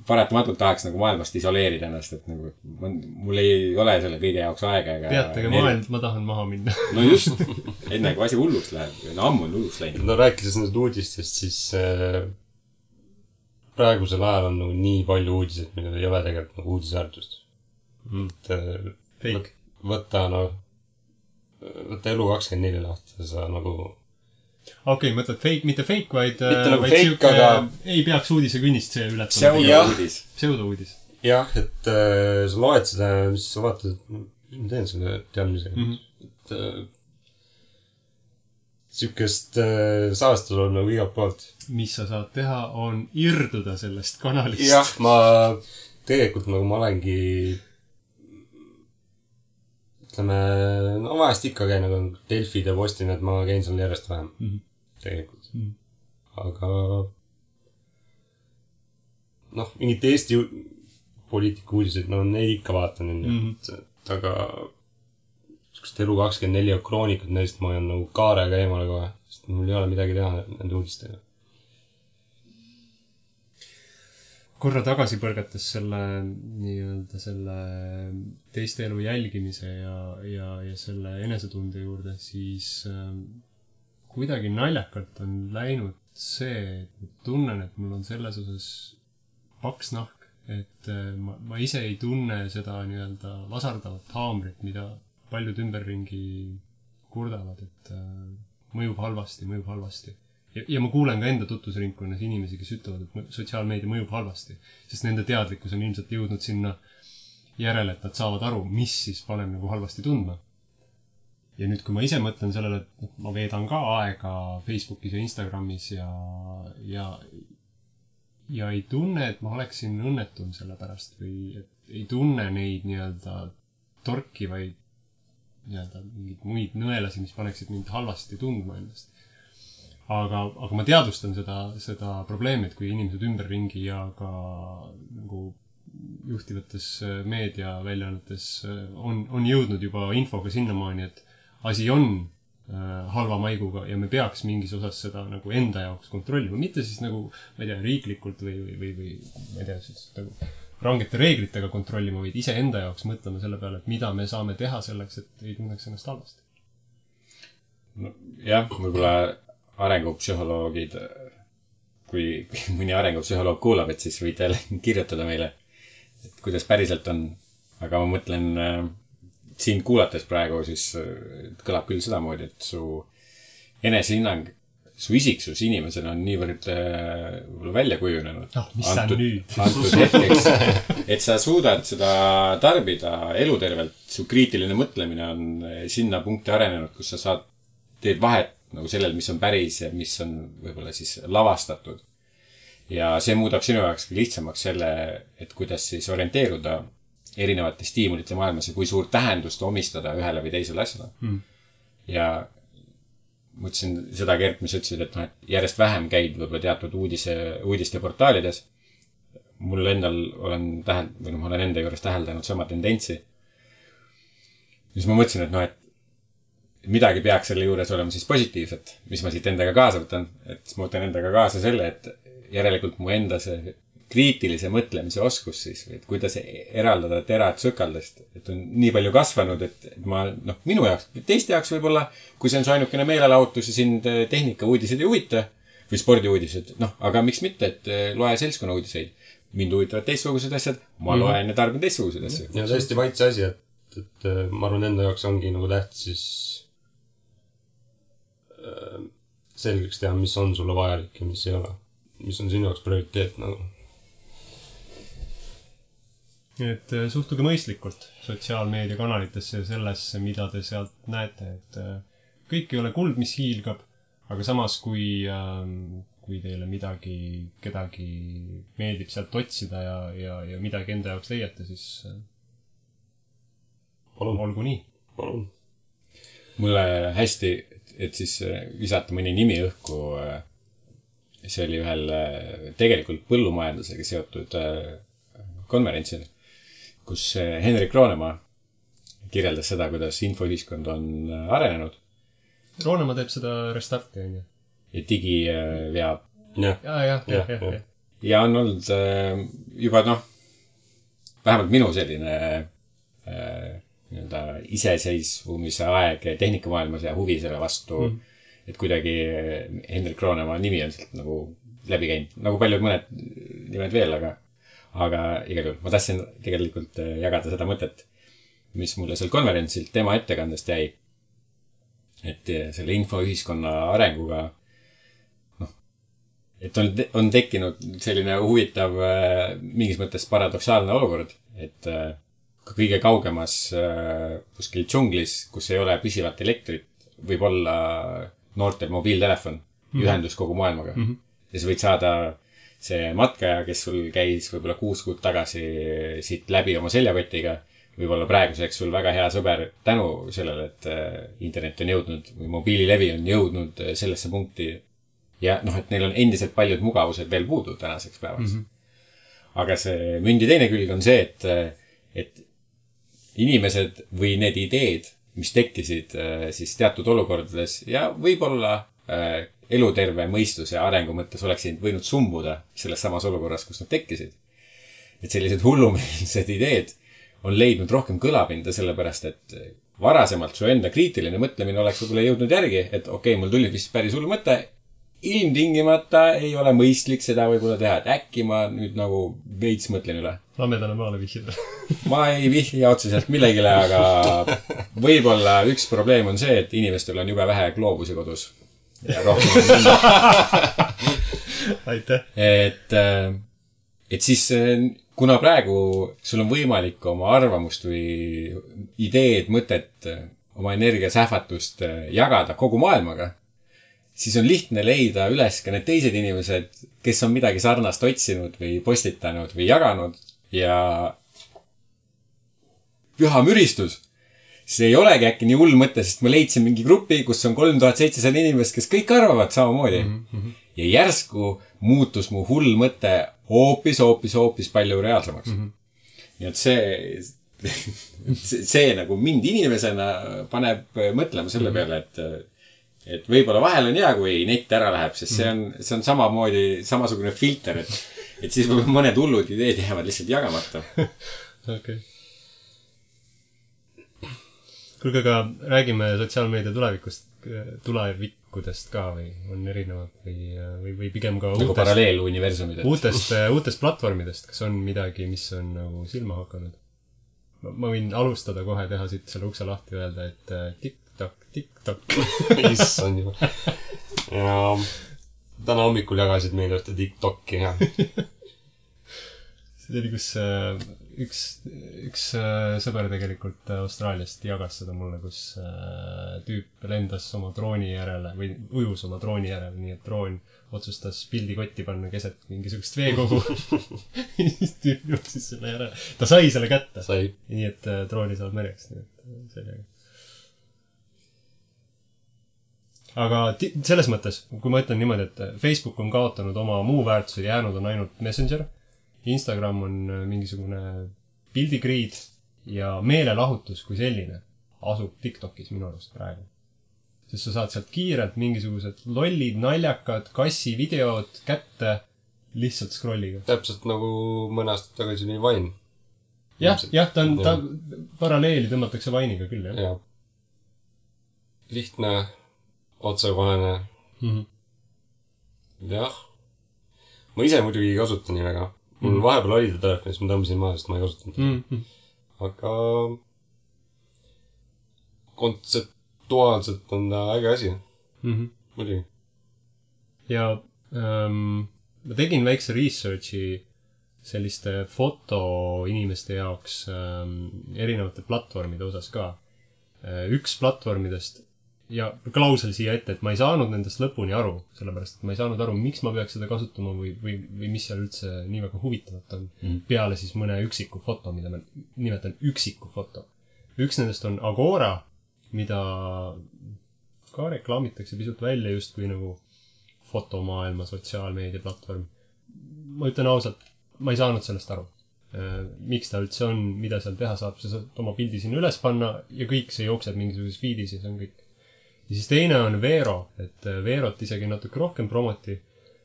B: paratamatult tahaks nagu maailmast isoleerida ennast, et nagu mul ei ole selle kõige jaoks aega.
A: Peatage maailm, ma tahan maha minna.
B: No just, enne kui asi hulluks läheb. Ammu on hulluks läinud.
C: No rääkides nendest uudistest, siis praegusel ajal on nagu nii palju uudiseid, millel ei ole tegelikult nagu uudisväärtust.
A: Fake.
C: Võtta Elu24 lahti, sa nagu...
A: Okei, mõtled fake, mitte fake, vaid
C: nagu fake, aga...
A: ei peaks uudisekünnist see ületama. Pseudo-uudis.
C: Jah, et sa loed seda, mis sa vaatad, mis ma teen selle teadmisega. Sükest saastada on nagu igalt poolt.
A: Mis sa saad teha, on irduda sellest kanalist.
C: Jah, ma tegelikult nagu ma olengi vahest ikka käin nagu Delfid ja Postin, et ma käin seal järjest vähem. Tegelikult. Aga mingid Eesti poliitika uudiseid, neid ikka vaatan. Aga Elu24 kroonikud, neist ma olen nagu kaarega eemale kohe, sest mul ei ole midagi teha nende uudistega.
A: Korra tagasi põrgates selle teiste elu jälgimise ja selle enesetunde juurde, siis kuidagi naljakalt on läinud see, et tunnen, et mul on selles osas paks nahk, et ma ise ei tunne seda vasardavat haamrit, mida paljud ümberringi kurdavad, et mõjub halvasti. Ja ma kuulen ka enda tutvusringkonnas inimesi, kes ütlevad, et sotsiaalmeedia mõjub halvasti, sest nende teadlikkus on ilmselt jõudnud sinna järele, et nad saavad aru, mis siis paneb nagu halvasti tundma. Ja nüüd, kui ma ise mõtlen sellele, et ma veedan ka aega Facebookis ja Instagramis ja ei tunne, et ma oleksin õnnetum selle pärast või et ei tunne neid torkivaid mingid muid nõelasi, mis paneksid mind halvasti tundma ennast. Aga ma teadvustan seda probleemi, et kui inimesed ümberringi ja ka nagu juhtivates meediaväljaannetes on jõudnud juba infoga sinnamaani, et asi on halva maiguga ja me peaks mingis osas seda nagu enda jaoks kontrollima. Mitte siis nagu, ma ei tea, riiklikult või ma ei tea, siis nagu rangete reeglitega kontrollima, vaid ise enda jaoks mõtlema selle peale, et mida me saame teha selleks, et ei tunneks ennast halvasti.
B: Jah, võib-olla arengupsühholoogid, kui mõni arengupsühholoog kuulab, et siis võite kirjutada meile, et kuidas päriselt on. Aga ma mõtlen, siin kuulates praegu, siis kõlab küll sedamoodi, et su enesehinnang, su isiksus inimesena on niivõrd välja kujunenud.
A: Mis sa nüüd?
B: Antud hetkeks, et sa suudad seda tarbida elutervelt. Su kriitiline mõtlemine on sinna punkti arenenud, kus sa teed vahet nagu sellel, mis on päris ja mis on võib-olla siis lavastatud. Ja see muudab sinu jaoks lihtsamaks selle, et kuidas siis orienteeruda erinevate stiimulite maailmas ja kui suurt tähendust omistada ühele või teisele asjale. Ja mõtlesin seda, Gert, mis ütlesid, et järjest vähem käid võib-olla teatud uudiste portaalides. Mul endal ma olen enda juures täheldanud sama tendentsi. Siis ma mõtlesin, et midagi peaks selle juures olema siis positiivset, mis ma siit endaga kaasa võtan. Et siis ma võtan endaga kaasa selle, järelikult mu enda see kriitilise mõtlemise oskus siis, et kuidas eraldada terad sõkaldest, et on nii palju kasvanud, et ma, noh, minu jaoks, teiste jaoks võib-olla, kui see on su ainukene meelelahutus ja sind tehnika uudised ei huvita või spordiuudised, noh, aga miks mitte, et loe seltskonna uudiseid. Mind huvitavad teistsugused asjad, ma loen ja tarbin teistsuguseid asju.
C: Ja tõesti maitse asi, et ma arvan, enda jaoks ongi nagu tähtis siis selgeks teha, mis on sulle vajalik ja mis ei ole. Mis on sinu jaoks prioriteet nagu.
A: Et suhtuge mõistlikult sotsiaalmeediakanalitesse ja sellesse, mida te sealt näete, et kõik ei ole kuld, mis hiilgab, aga samas, kui teile kedagi meeldib sealt otsida ja midagi enda jaoks leiate, siis olgu nii.
C: Palun.
B: Mulle hästi, et siis visata mõni nimi õhku, see oli ühel tegelikult põllumajandusega seotud konverentsil, kus Henrik Roonemaa kirjeldas seda, kuidas infoühiskond on arenenud.
A: Roonemaa teeb seda restarti, on ju?
B: Ja digi veab.
A: Ja.
B: Ja on olnud juba, vähemalt minu selline iseseisvumise aeg tehnikamaailmas ja huvi selle vastu, et kuidagi Henrik Roonemaa nimi on sealt nagu läbi käinud. Nagu paljud mõned nimed veel, aga igal juhul ma tahtsin tegelikult jagada seda mõtet, mis mulle seal konverentsilt tema ettekandest jäi. Et selle infoühiskonna arenguga, et on tekkinud selline huvitav, mingis mõttes paradoksaalne olukord, et kõige kaugemas kuskil džunglis, kus ei ole püsivat elektrit, võib olla noortel mobiiltelefon, ühendus kogu maailmaga. Ja sa võid saada see matkaja, kes sul käis võib-olla 6 kuud tagasi siit läbi oma seljakotiga, võib-olla praeguseks sul väga hea sõber tänu sellele, et internet on jõudnud või mobiililevi on jõudnud sellesse punkti ja et neil on endiselt paljud mugavused veel puudu tänaseks päevaks. Aga see mündi teine külg on see, et inimesed või need ideed, mis tekkisid siis teatud olukordades ja võib-olla eluterve mõistuse arengu mõttes oleksid võinud sumbuda selles samas olukorras, kus nad tekkisid. Et sellised hullumeelsed ideed on leidnud rohkem kõlapinda sellepärast, et varasemalt su enda kriitiline mõtlemine oleks võib-olla jõudnud järgi, et okei, mul tuli vist päris hull mõte, ilmtingimata ei ole mõistlik seda võib-olla teha, et äkki ma nüüd nagu veits mõtlen üle.
A: Lamedale maale vihjida.
B: Ma ei vihja otseselt millegile, aga võib-olla üks probleem on see, et inimestel on jube vähe gloobusi kodus. Ja rohkem
A: aitäh.
B: Et siis, kuna praegu sul on võimalik oma arvamust või ideed, mõtet, oma energiasähvatust jagada kogu maailmaga, siis on lihtne leida üles ka need teised inimesed, kes on midagi sarnast otsinud või postitanud või jaganud ja püha müristus. See ei olegi äkki nii hull mõte, sest ma leidsin mingi grupi, kus on 3700 inimest, kes kõik arvavad samamoodi. Ja järsku muutus mu hull mõte hoopis palju reaalsemaks. Nii et see nagu mind inimesena paneb mõtlema selle peale, et võib-olla vahel on hea, kui net ära läheb, sest see on samasugune filter, et siis mõned hullud ideed jäävad lihtsalt jagamata.
A: Okei. Kuulge, aga räägime sotsiaalmeedia tulevikudest ka või on erinevad või pigem ka
B: nagu paralleeluniversumid.
A: Uutest platvormidest, kas on midagi, mis on nagu silma hakanud? Ma võin alustada kohe teha siit selle ukse lahti öelda, et TikTok.
C: Issand juba. Ja täna hommikul jagasid meile ühte TikToki ja
A: see oli, kus üks sõber tegelikult Austraaliast jagas seda mulle, kus tüüp lendas oma drooni järele või ujus oma drooni järele, nii et droon otsustas pildikotti panna keset mingisugust veekogu. Siis tüüp jõudis selle järele. Ta sai selle kätte. Nii et drooni saab mereks. Nii et sellega. Aga selles mõttes, kui ma ütlen niimoodi, et Facebook on kaotanud oma muu väärtused, jäänud on ainult Messenger, Instagram on mingisugune pildigriid ja meelelahutus kui selline asub TikTokis minu arust praegu. Sest sa saad sealt kiirelt mingisugused lollid, naljakad, kassi videod kätte lihtsalt scrolliga.
C: Täpselt nagu mõne aastat tagasi oli Vine.
A: Jah, ta paralleeli tõmmatakse Vine'iga küll, jah.
C: Jah. Lihtne, otsekohene. Jah. Ma ise muidugi ei kasuta nii väga. Mul vahepeal oli ta telefonis, ma tõmbasin maha, sest ma ei kasutanud. Aga kontseptuaalselt on ta äge asi. Muidugi.
A: Ja ma tegin väikse researchi selliste fotoinimeste jaoks erinevate platvormide osas ka. Üks platvormidest ja klausel siia ette, et ma ei saanud nendest lõpuni aru, sellepärast, et ma ei saanud aru, miks ma peaks seda kasutama või mis seal üldse nii väga huvitavat on. Peale siis mõne üksiku foto, mida ma nimetan üksiku foto. Üks nendest on Agora, mida ka reklaamitakse pisut välja just kui nagu fotomaailma sotsiaalmeedia platvorm. Ma ütlen ausalt, ma ei saanud sellest aru. Miks ta üldse on, mida seal teha saab, sa saad oma pildi sinna üles panna ja kõik see jookseb mingisuguses feedis ja see on kõik. Ja siis teine on Vero, et Verot isegi natuke rohkem promoti.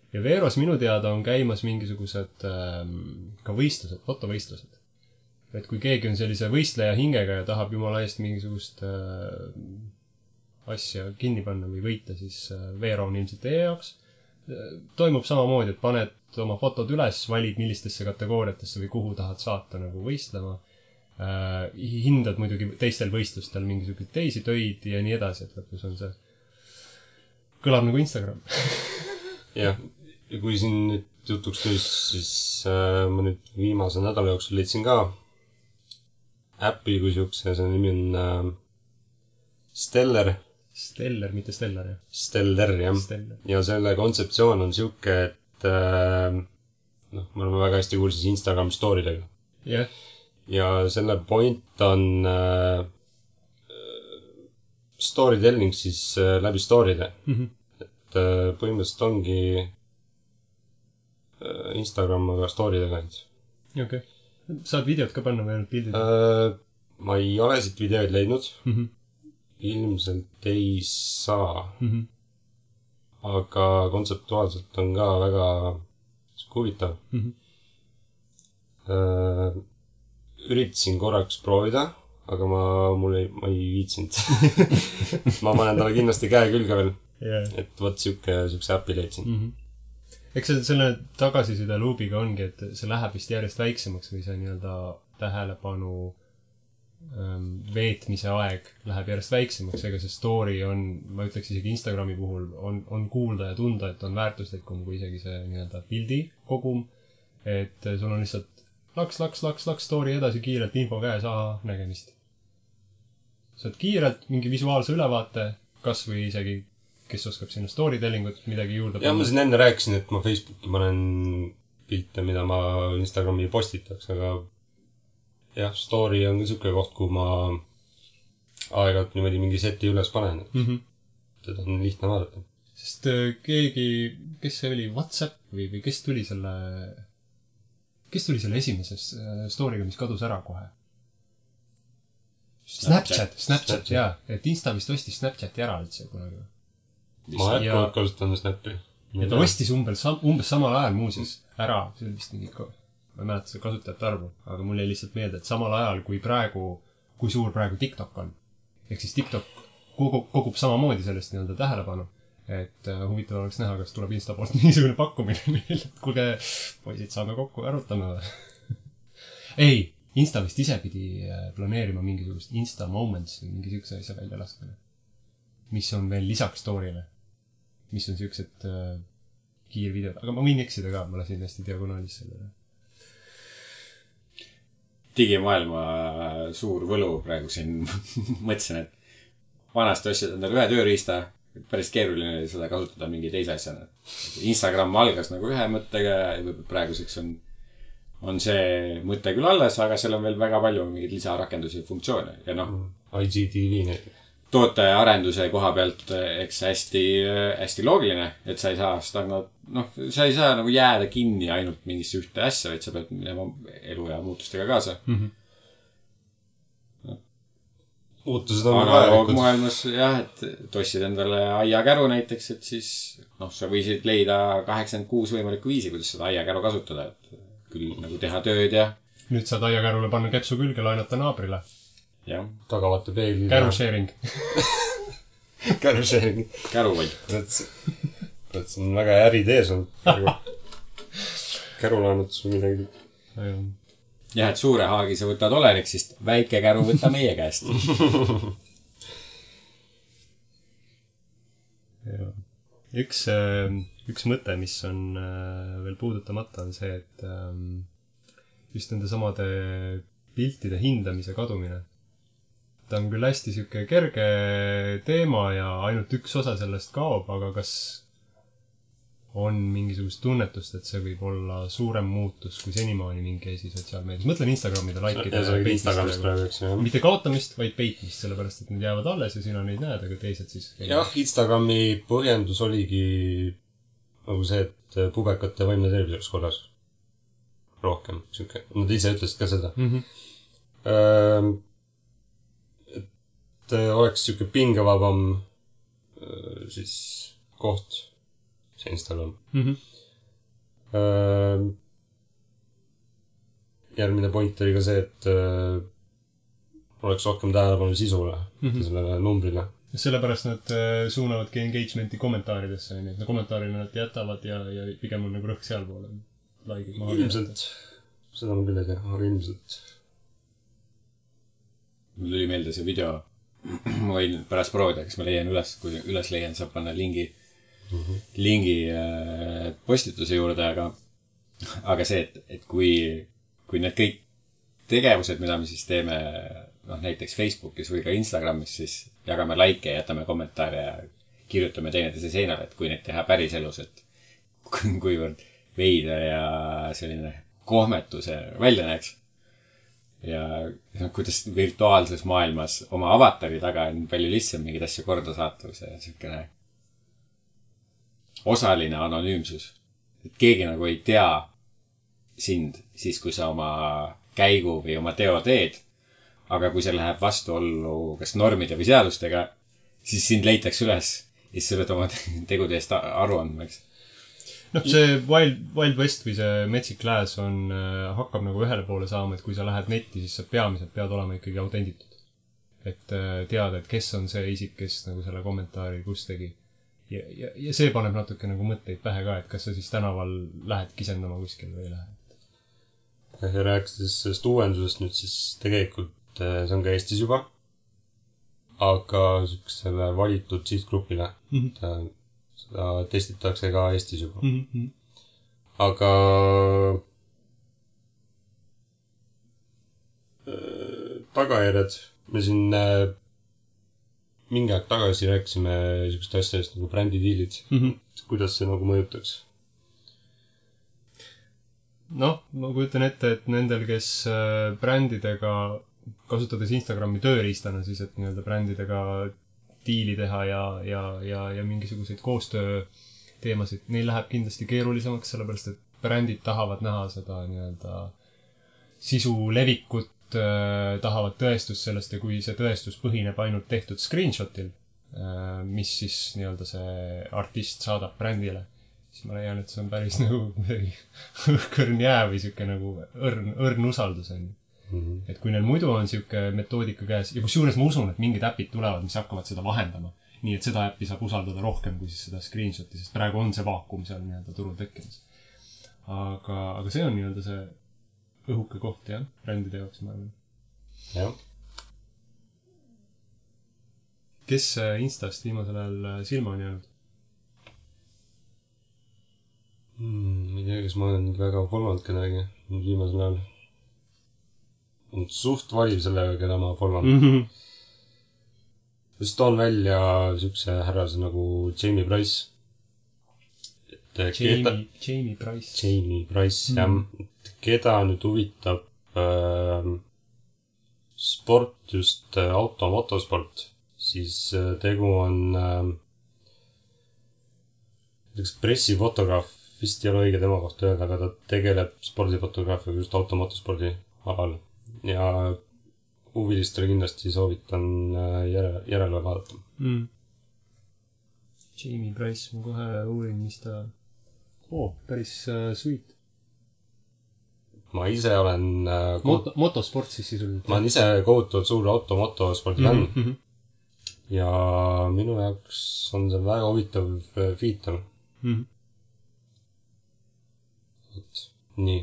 A: Ja Veros minu teada on käimas mingisugused ka võistlused, fotovõistlused. Et kui keegi on sellise võistleja hingega ja tahab jumala eest mingisugust asja kinni panna või võita, siis Vero on ilmselt teie jaoks. Toimub samamoodi, et paned oma fotod üles, valid millistesse kategooriatesse või kuhu tahad saata nagu võistlema. Hindad muidugi teistel võistlustel mingisugused teisi töid ja nii edasi, et lõpus on see kõlab nagu Instagram.
C: Jah, ja kui siin nüüd jutuks tuli, siis ma nüüd viimase nädala jooksul leidsin ka äppi kui siukse, see nimi on Stellar, mitte Stellar, jah. Stellar, jah. Ja selle kontseptsioon on siuke, et me oleme väga hästi kursis Instagram story'dega.
A: Jah.
C: Ja selle point on storytelling siis läbi story'de. Et põhimõtteliselt ongi Instagram aga story'dega.
A: Okay. Saad videot ka panna või ainult pildid?
C: Ma ei ole siit videoid leidnud. Ilmselt ei saa. Aga kontseptuaalselt on ka väga huvitav. Üritasin korraks proovida, aga ma ei viitsinud. Ma panen talle kindlasti käe külge veel. Et võt siukse äppi leidsin.
A: Eks selle tagasiside luubiga ongi, et see läheb vist järjest väiksemaks või see nii-öelda tähelepanu veetmise aeg läheb järjest väiksemaks, ega see story on, ma ütleks isegi Instagrami puhul, on kuulda ja tunda, et on väärtuslikum kui isegi see nii-öelda pildi kogum, et sul on lihtsalt laks story edasi kiirelt, info käes, nägemist. Saad kiirelt mingi visuaalse ülevaate, kas või isegi, kes oskab sinna storytellingut midagi juurde
C: panna. Ja ma siin enne rääkisin, et ma Facebooki panen pilte, mida ma Instagrami postitaks, aga jah, story on ka siuke koht, kuhu ma aeg-ajalt niimoodi mingi seti üles panen. Seda on lihtne vaadata.
A: Sest keegi, kes see oli, WhatsApp või kes tuli selle esimeses story'ga, mis kadus ära kohe? Snapchat, jaa. Et Insta vist ostis Snapchati ära üldse kunagi.
C: Ma jätkuvalt kasutan Snappi.
A: Ja ta ostis umbes samal ajal muuseas ära, see oli vist mingi ma ei mäleta seda kasutajate arvu, aga mul jäi lihtsalt meelde, et samal ajal kui suur praegu TikTok on. Ehk siis TikTok kogub samamoodi sellest nii-öelda tähelepanu, et huvitav oleks näha, kas tuleb Insta poolt niisugune pakkumine meil, et kuulge, poisid, saame kokku, arutame või? Ei, Insta vist ise pidi planeerima mingisugust Insta Moments või mingi siukse asja välja laskmine, mis on veel lisaks story'le, mis on siuksed kiirvideod, aga ma võin eksida ka, ma lasin hästi diagonaalis sellele.
B: Digimaailma suur võlu praegu siin mõtlesin, et vanasti ostsid endale ühe tööriista, päris keeruline oli seda kasutada mingi teise asjana. Instagram algas nagu ühe mõttega ja praeguseks on see mõte küll alles, aga seal on veel väga palju mingeid lisarakendusi ja funktsioone. Ja
C: IGTV näiteks.
B: Tootearenduse koha pealt eks hästi loogiline, et sa ei saa sa ei saa nagu jääda kinni ainult mingisse ühte asja, vaid sa pead minema elu ja muutustega kaasa.
C: muutused on
B: analoogmaailmas jah, et tossid endale aiakäru näiteks, et siis sa võisid leida 86 võimalikku viisi, kuidas seda aiakäru kasutada, et küll nagu teha tööd ja
A: nüüd saad aiakärule panna kepsu külge, laenata naabrile.
B: jah.
C: Tagavate peegli.
A: Käru sharing.
C: Käru sharing.
B: Käruvall.
C: See on väga äridee sul. Käru laenutus või midagi.
B: jah, et suure haagi sa võtad Olerik, siis väike käru võta meie käest.
A: Üks mõte, mis on veel puudutamata, on see, et just nende samade piltide hindamise kadumine. Ta on küll hästi siuke kerge teema ja ainult üks osa sellest kaob, aga kas on mingisugust tunnetust, et see võib olla suurem muutus kui senimaani mingi asi sotsiaalmeedias. Mõtlen Instagramide like'ide mitte kaotamist, vaid peitmist, sellepärast, et need jäävad alles ja sina neid näed, aga teised siis...
C: jah, Instagrami põhjendus oligi nagu see, et pubekate vaimne tervis oleks korras. Rohkem. Nad ise ütlesid ka seda. Et oleks siuke pingevabam siis koht see Instagram. Järgmine point oli ka see, et oleks rohkem tähelepanu sisule, sellele numbrile.
A: Sellepärast nad suunavadki engagementi kommentaaridesse, nii et kommentaarina nad jätavad ja pigem on nagu rõhk seal poole.
C: Ilmselt, seda ma küll ei tea, aga ilmselt.
B: Mul tuli meelde see video, ma võin pärast proovida, kas ma leian üles, kui üles leian, saab panna lingi postituse juurde, aga see, et kui need kõik tegevused, mida me siis teeme näiteks Facebookis või ka Instagramis, siis jagame like ja jätame kommentaare ja kirjutame teineteise seinale, et kui neid teha päris elus, et kuivõrd veider ja selline kohmetuse välja näeks. Ja kuidas virtuaalses maailmas oma avatari taga on palju lihtsam mingid asju korda saata, kui see siukene osaline anonüümsus. Et keegi nagu ei tea sind siis, kui sa oma käigu või oma teo teed, aga kui see läheb vastuollu kas normide või seadustega, siis sind leitakse üles ja siis sa pead oma tegude eest aru andma, eks.
A: See Wild West või see metsik lääs hakkab nagu ühele poole saama, et kui sa lähed netti, siis sa peamiselt pead olema ikkagi autenditud. Et teada, et kes on see isik, kes nagu selle kommentaari kus tegi. Ja see paneb natuke nagu mõtteid pähe ka, et kas sa siis tänaval lähed kisendama kuskil või ei lähe.
C: Ja rääkides sellest uuendusest nüüd, siis tegelikult see on ka Eestis juba, aga selle valitud sihtgrupile. Seda testitakse ka Eestis juba. Aga tagajärjed, me siin mingi aeg tagasi rääkisime niisugust asjadest nagu brändidiilid. Kuidas see nagu mõjutaks?
A: Ma kujutan ette, et nendel, kes brändidega, kasutades Instagrami tööriistana, siis et nii-öelda brändidega diili teha ja mingisuguseid koostöö teemasid, neil läheb kindlasti keerulisemaks, sellepärast, et brändid tahavad näha seda nii-öelda sisu levikut, tahavad tõestust sellest ja kui see tõestus põhineb ainult tehtud screenshotil, mis siis nii-öelda see artist saadab brändile, siis ma leian, et see on päris nagu õhkõrn jää või siuke nagu õrn usaldus on. Et kui neil muidu on siuke metoodika käes ja kusjuures ma usun, et mingid äpid tulevad, mis hakkavad seda vahendama, nii et seda äppi saab usaldada rohkem kui siis seda screenshoti, sest praegu on see vaakum seal nii-öelda turul tekkimas. Aga see on nii-öelda see õhuke koht, jah, brändide jaoks, ma arvan.
C: Jah.
A: Kes Instast viimasel ajal silma on jäänud?
C: Ei tea, kas ma olen väga follonud kedagi viimasel ajal. On suht valiv sellega, keda ma followan. Just toon välja siukse härrase nagu Jamie Price.
A: Jamie Price.
C: Jamie Price, jah. Keda nüüd huvitab sport, just motosport, siis tegu on pressifotograaf, vist ei ole õige tema kohta öelda, aga ta tegeleb spordifotograafiaga just motospordi alal. Ja huvilistele kindlasti soovitan järele vaadata.
A: Jamie Price, ma kohe uurin, mis ta... päris sweet.
C: Ma ise olen...
A: Motosport siis sisuliselt.
C: Ma olen ise kohutavalt suur motospordi fänn. Ja minu jaoks on see väga huvitav feature. Nii,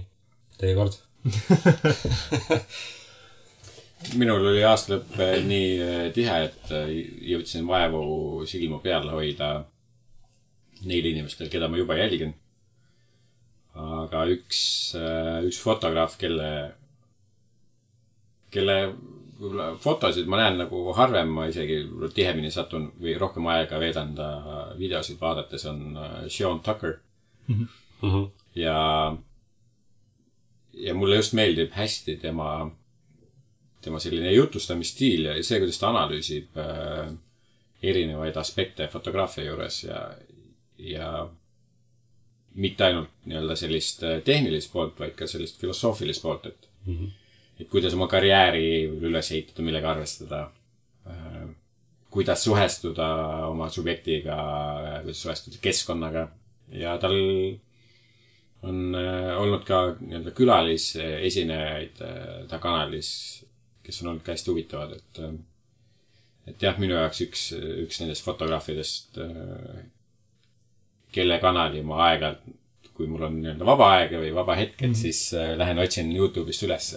C: teie kord.
B: Minul oli aastalõpp nii tihe, et jõudsin vaevu silmu peal hoida neil inimestel, keda ma juba jälgin. Aga üks fotograaf, kelle fotosid ma näen nagu harvem, ma isegi tihemini satun või rohkem aega veedan ta videosid vaadates, on Sean Tucker. Ja mulle just meeldib hästi tema selline jutustamisstiil ja see, kuidas ta analüüsib erinevaid aspekte fotograafia juures ja mitte ainult nii-öelda sellist tehnilist poolt, vaid ka sellist filosoofilist poolt, et kuidas oma karjääri üles ehitada, millega arvestada, kuidas suhestuda oma subjektiga, kuidas suhestuda keskkonnaga ja tal on olnud ka nii-öelda külalisesinejaid ta kanalis, kes on olnud ka hästi huvitavad, et jah, minu jaoks üks nendest fotograafidest, kelle kanali ma aeg-ajalt, kui mul on nii-öelda vaba aega või vaba hetked, siis lähen otsin YouTube'ist üles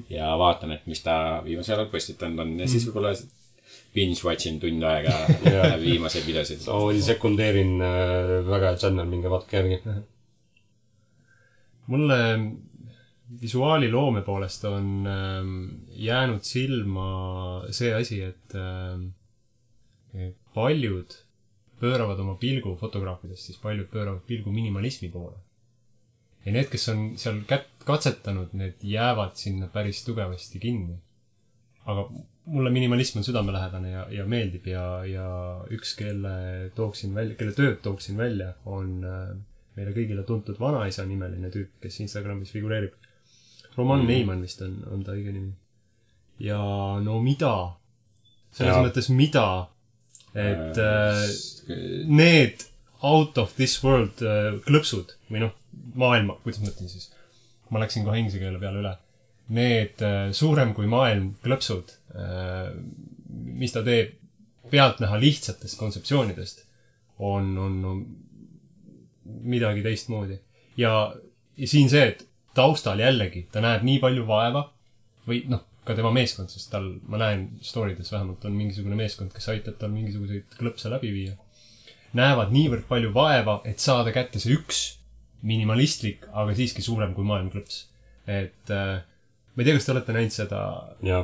B: ja vaatan, et mis ta viimasel ajal postitanud on ja siis võib-olla binge-watchin tund aega viimaseid videosid.
C: Sekundeerin väga channel, minge vaatke järgi.
A: Mulle visuaaliloome poolest on jäänud silma see asi, et paljud pööravad oma pilgu fotograafidest, siis paljud pööravad pilgu minimalismi poole. Ja need, kes on seal katsetanud, need jäävad sinna päris tugevasti kinni. Aga mulle minimalism on südamelähedane ja meeldib ja üks, kelle tööd tooksin välja, on meile kõigile tuntud vanaisa nimeline tüüp, kes Instagramis figureerib. Roman Neiman vist on ta õige nimi. Ja no mida? Selles mõttes mida? Et need out of this world klõpsud või maailma, kuidas mõtlen siis? Ma läksin kohe inglise keele peale üle. Need suurem kui maailm klõpsud, mis ta teeb pealtnäha lihtsatest kontseptsioonidest, on midagi teistmoodi. Ja siin see, et taustal jällegi ta näeb nii palju vaeva või ka tema meeskond, sest ma näen storydes vähemalt on mingisugune meeskond, kes aitab tal mingisuguseid klõpse läbi viia. Näevad niivõrd palju vaeva, et saada kätte see üks minimalistlik, aga siiski suurem kui maailm klõps. Et ma ei tea, kas te olete näinud seda.
C: Ja.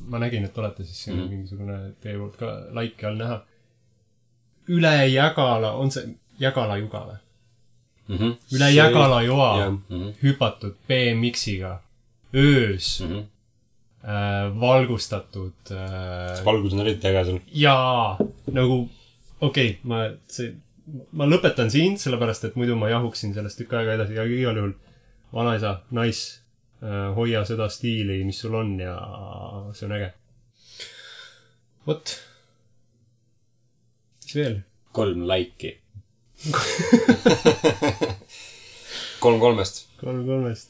A: Ma nägin, et olete siis siin mingisugune teie poolt ka laiki all näha. Üle Jägala, on see Jägala juga või? Üle Jägala joa hüpatud BMX-iga öös valgustatud.
C: Valgus on eriti äge seal.
A: Jaa, ma lõpetan siin, sellepärast, et muidu ma jahuksin sellest tükk aega edasi ja igal juhul vanaisa, hoia seda stiili, mis sul on ja see on äge. Vot. Mis veel?
B: 3 laiki.
C: 3-3-st.
A: 3-3-st.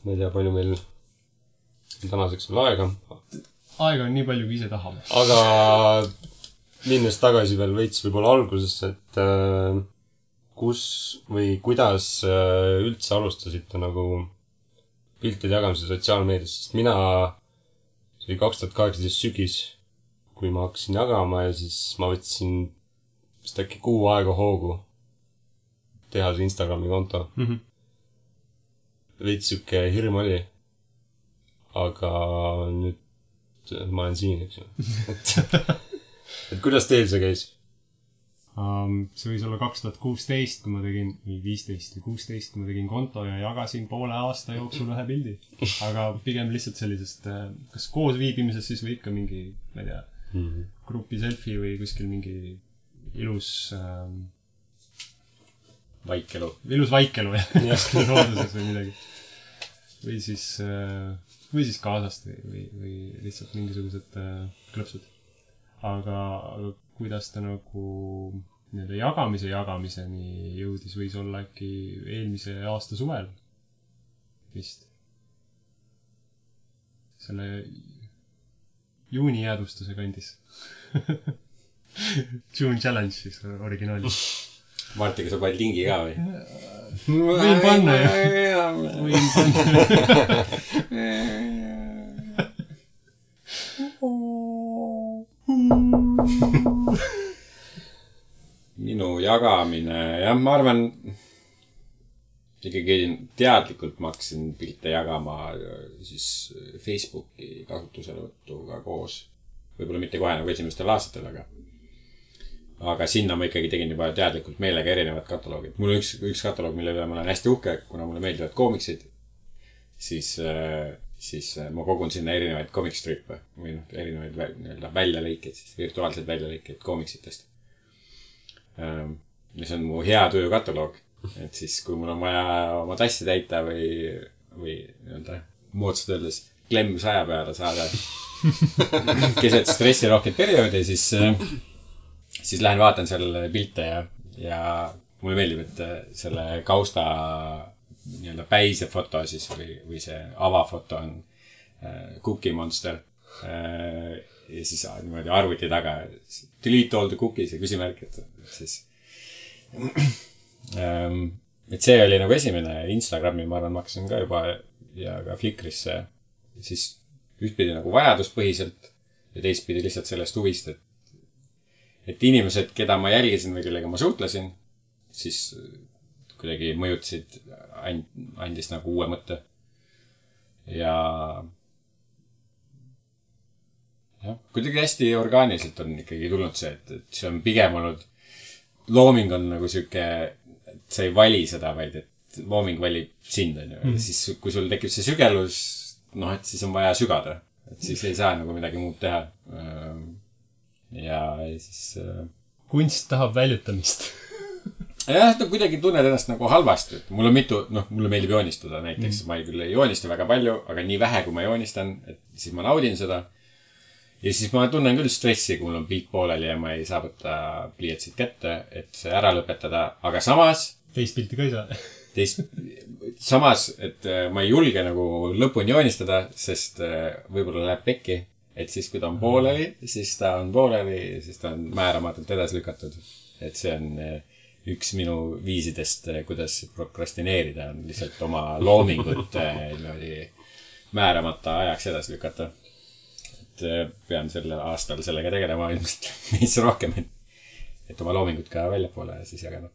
C: Ma ei tea, palju meil tänaseks veel aega.
A: Aega on nii palju, kui ise tahame.
C: Aga minnes tagasi veel veits võib-olla algusesse, et kus või kuidas üldse alustasite nagu piltide jagamise sotsiaalmeedias, sest mina, see oli 2018 sügis, kui ma hakkasin jagama ja siis ma võtsin vist äkki kuu aega hoogu teha see Instagrami konto. Veits süke hirm oli, aga nüüd ma olen siin, eks ju. Et kuidas teil see käis?
A: See võis olla 2016, kui ma tegin, või 15 või 16, kui ma tegin konto ja jagasin poole aasta jooksul ühe pildi. Aga pigem lihtsalt sellisest, kas koos viibimises siis või ikka mingi, ma ei tea, grupi selfie või kuskil mingi ilus
B: vaikelu.
A: Ilus vaikelu, jah. Kuskil looduses või midagi. Või siis või siis kaasast või lihtsalt mingisugused klõpsud. Aga kuidas ta nagu nii-öelda jagamiseni jõudis, võis olla äkki eelmise aasta suvel vist. Selle juuni jäädvustuse kandis. June Challenge siis originaalis.
B: Martiga sa paned lingi ka või?
A: Võin panna jah. Võin panna.
B: Minu jagamine, jah, ma arvan, ikkagi teadlikult ma hakkasin pilte jagama siis Facebooki kasutuselevõtuga koos. Võib-olla mitte kohe nagu esimestel aastatel, aga sinna ma ikkagi tegin juba teadlikult meelega erinevad kataloogid. Mul on üks kataloog, mille üle ma olen hästi uhke, kuna mulle meeldivad koomiksid, siis ma kogun sinna erinevaid komikstrippe või erinevaid väljalõikeid, siis virtuaalseid väljalõikeid koomiksitest. Ja see on mu hea töö kataloog, et siis kui mul on vaja oma tassi täita või moodsalt öeldes klemm 100 peale saada keset stressirohket perioodi, siis lähen vaatan seal pilte ja mulle meeldib, et selle kausta nii-öelda päise foto siis või see avafoto on Cookie Monster ja siis niimoodi arvuti taga delete all the cookies ja küsimärk, et siis et see oli nagu esimene. Instagrami ma arvan maksin ka juba ja ka Flickrisse siis ühtpidi nagu vajaduspõhiselt ja teistpidi lihtsalt sellest huvist, et inimesed, keda ma jälgisin või kellega ma suhtlesin, siis kuidagi mõjutasid, andis nagu uue mõtte. Ja kuidagi hästi orgaaniliselt on ikkagi tulnud see, et see on pigem olnud, looming on nagu siuke, et sa ei vali seda, vaid et looming valib sind, on ju. Siis kui sul tekib see sügelus, et siis on vaja sügada, et siis ei saa nagu midagi muud teha. Ja siis
A: kunst tahab väljutamist.
B: Jah, kuidagi tunned ennast nagu halvasti. Mul on mulle meeldib joonistada näiteks. Ma küll ei joonista väga palju, aga nii vähe, kui ma joonistan, et siis ma naudin seda. Ja siis ma tunnen küll stressi, kui mul on pilt pooleli ja ma ei saa võtta pliiatsid kätte, et see ära lõpetada. Aga samas...
A: Teist pilti ka ei saa.
B: Samas, et ma ei julge nagu lõpuni joonistada, sest võib-olla läheb pekki. Et siis, kui ta on pooleli, siis ta on pooleli, siis ta on määramatult edasi lükatud. Et see on üks minu viisidest, kuidas prokrastineerida, on lihtsalt oma loomingut määramata ajaks edasi lükata. Et pean sellel aastal sellega tegelema ilmselt meis rohkem, et oma loomingut ka väljapoole siis jagada.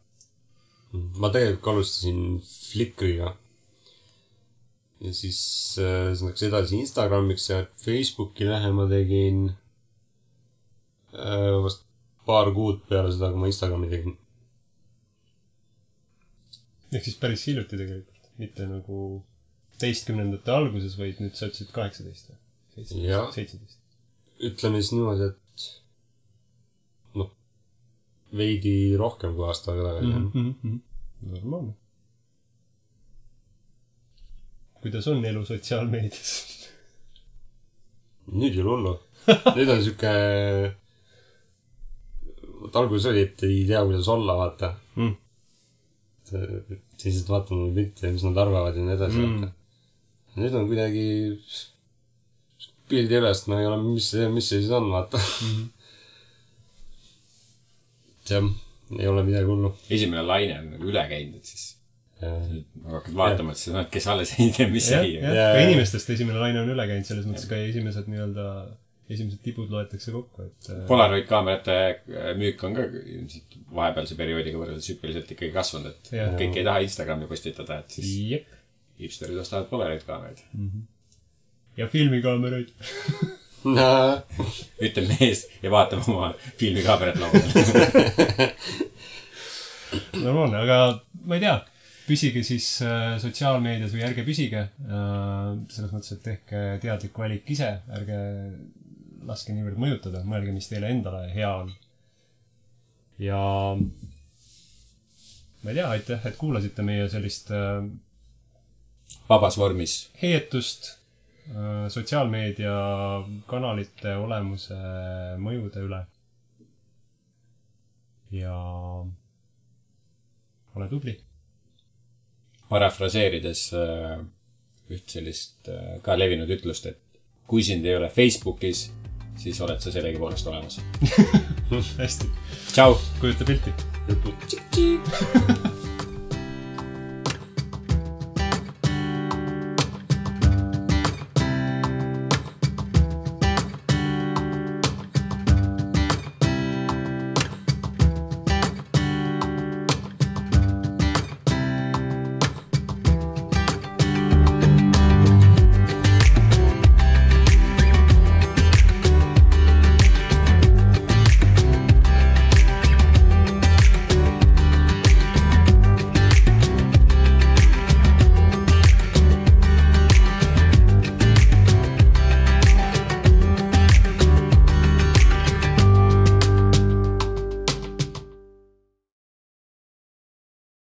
C: Ma tegelikult alustasin Flickriga. Ja siis läks edasi Instagramiks ja Facebooki lähema tegin vast paar kuud peale seda, kui ma Instagrami tegin.
A: Ehk siis päris hiljuti tegelikult. Mitte nagu 10. alguses, vaid nüüd sa ütlesid 18. 17.
C: Ütleme siis niimoodi, et veidi rohkem kui aasta tagasi.
A: Normaalne. Kuidas on elu sotsiaalmeedias?
C: Nüüd ei ole hullu. Nüüd on siuke... alguses oli, et ei tea, kuidas olla, vaata. Siis vaatan mulle pilte ja mis nad arvavad ja nii edasi. Nüüd on kuidagi... pildi ülest, ma ei ole, mis see siis on, vaata. See ei ole midagi hullu.
B: Esimene laine on nagu üle käinud, et siis... Ma hakkad vaatama, et see kes alles ei tea, mis ei.
A: Ka inimestest esimene laine on üle käinud, selles mõttes ka esimesed tibud loetakse kokku.
B: Polaroid kaamerate müük on ka vahepealse perioodiga võrreldes hüppeliselt ikkagi kasvanud, et kõik ei taha Instagrami postitada, et siis hipsterid ostavad Polaroid kaameraid.
A: Ja filmikaameraid.
B: Ütleb mees ja vaatab oma filmikaamerat laudel.
A: Normaalne, aga ma ei tea. Püsige siis sotsiaalmeedias või ärge püsige. Selles mõttes, et tehke teadlik valik ise. Ärge laske niivõrd mõjutada. Mõelge, mis teile endale hea on. Ja ma ei tea, aitäh, et kuulasite meie sellist
B: vabas vormis
A: heietust sotsiaalmeedia kanalite olemuse mõjude üle. Ja ole tubli.
B: Parafraseerides üht sellist ka levinud ütlust, et kui sind ei ole Facebookis, siis oled sa sellegi poolest olemas.
A: Hästi.
B: Tšau!
A: Kujuta pilti.
C: Tšik-tšik!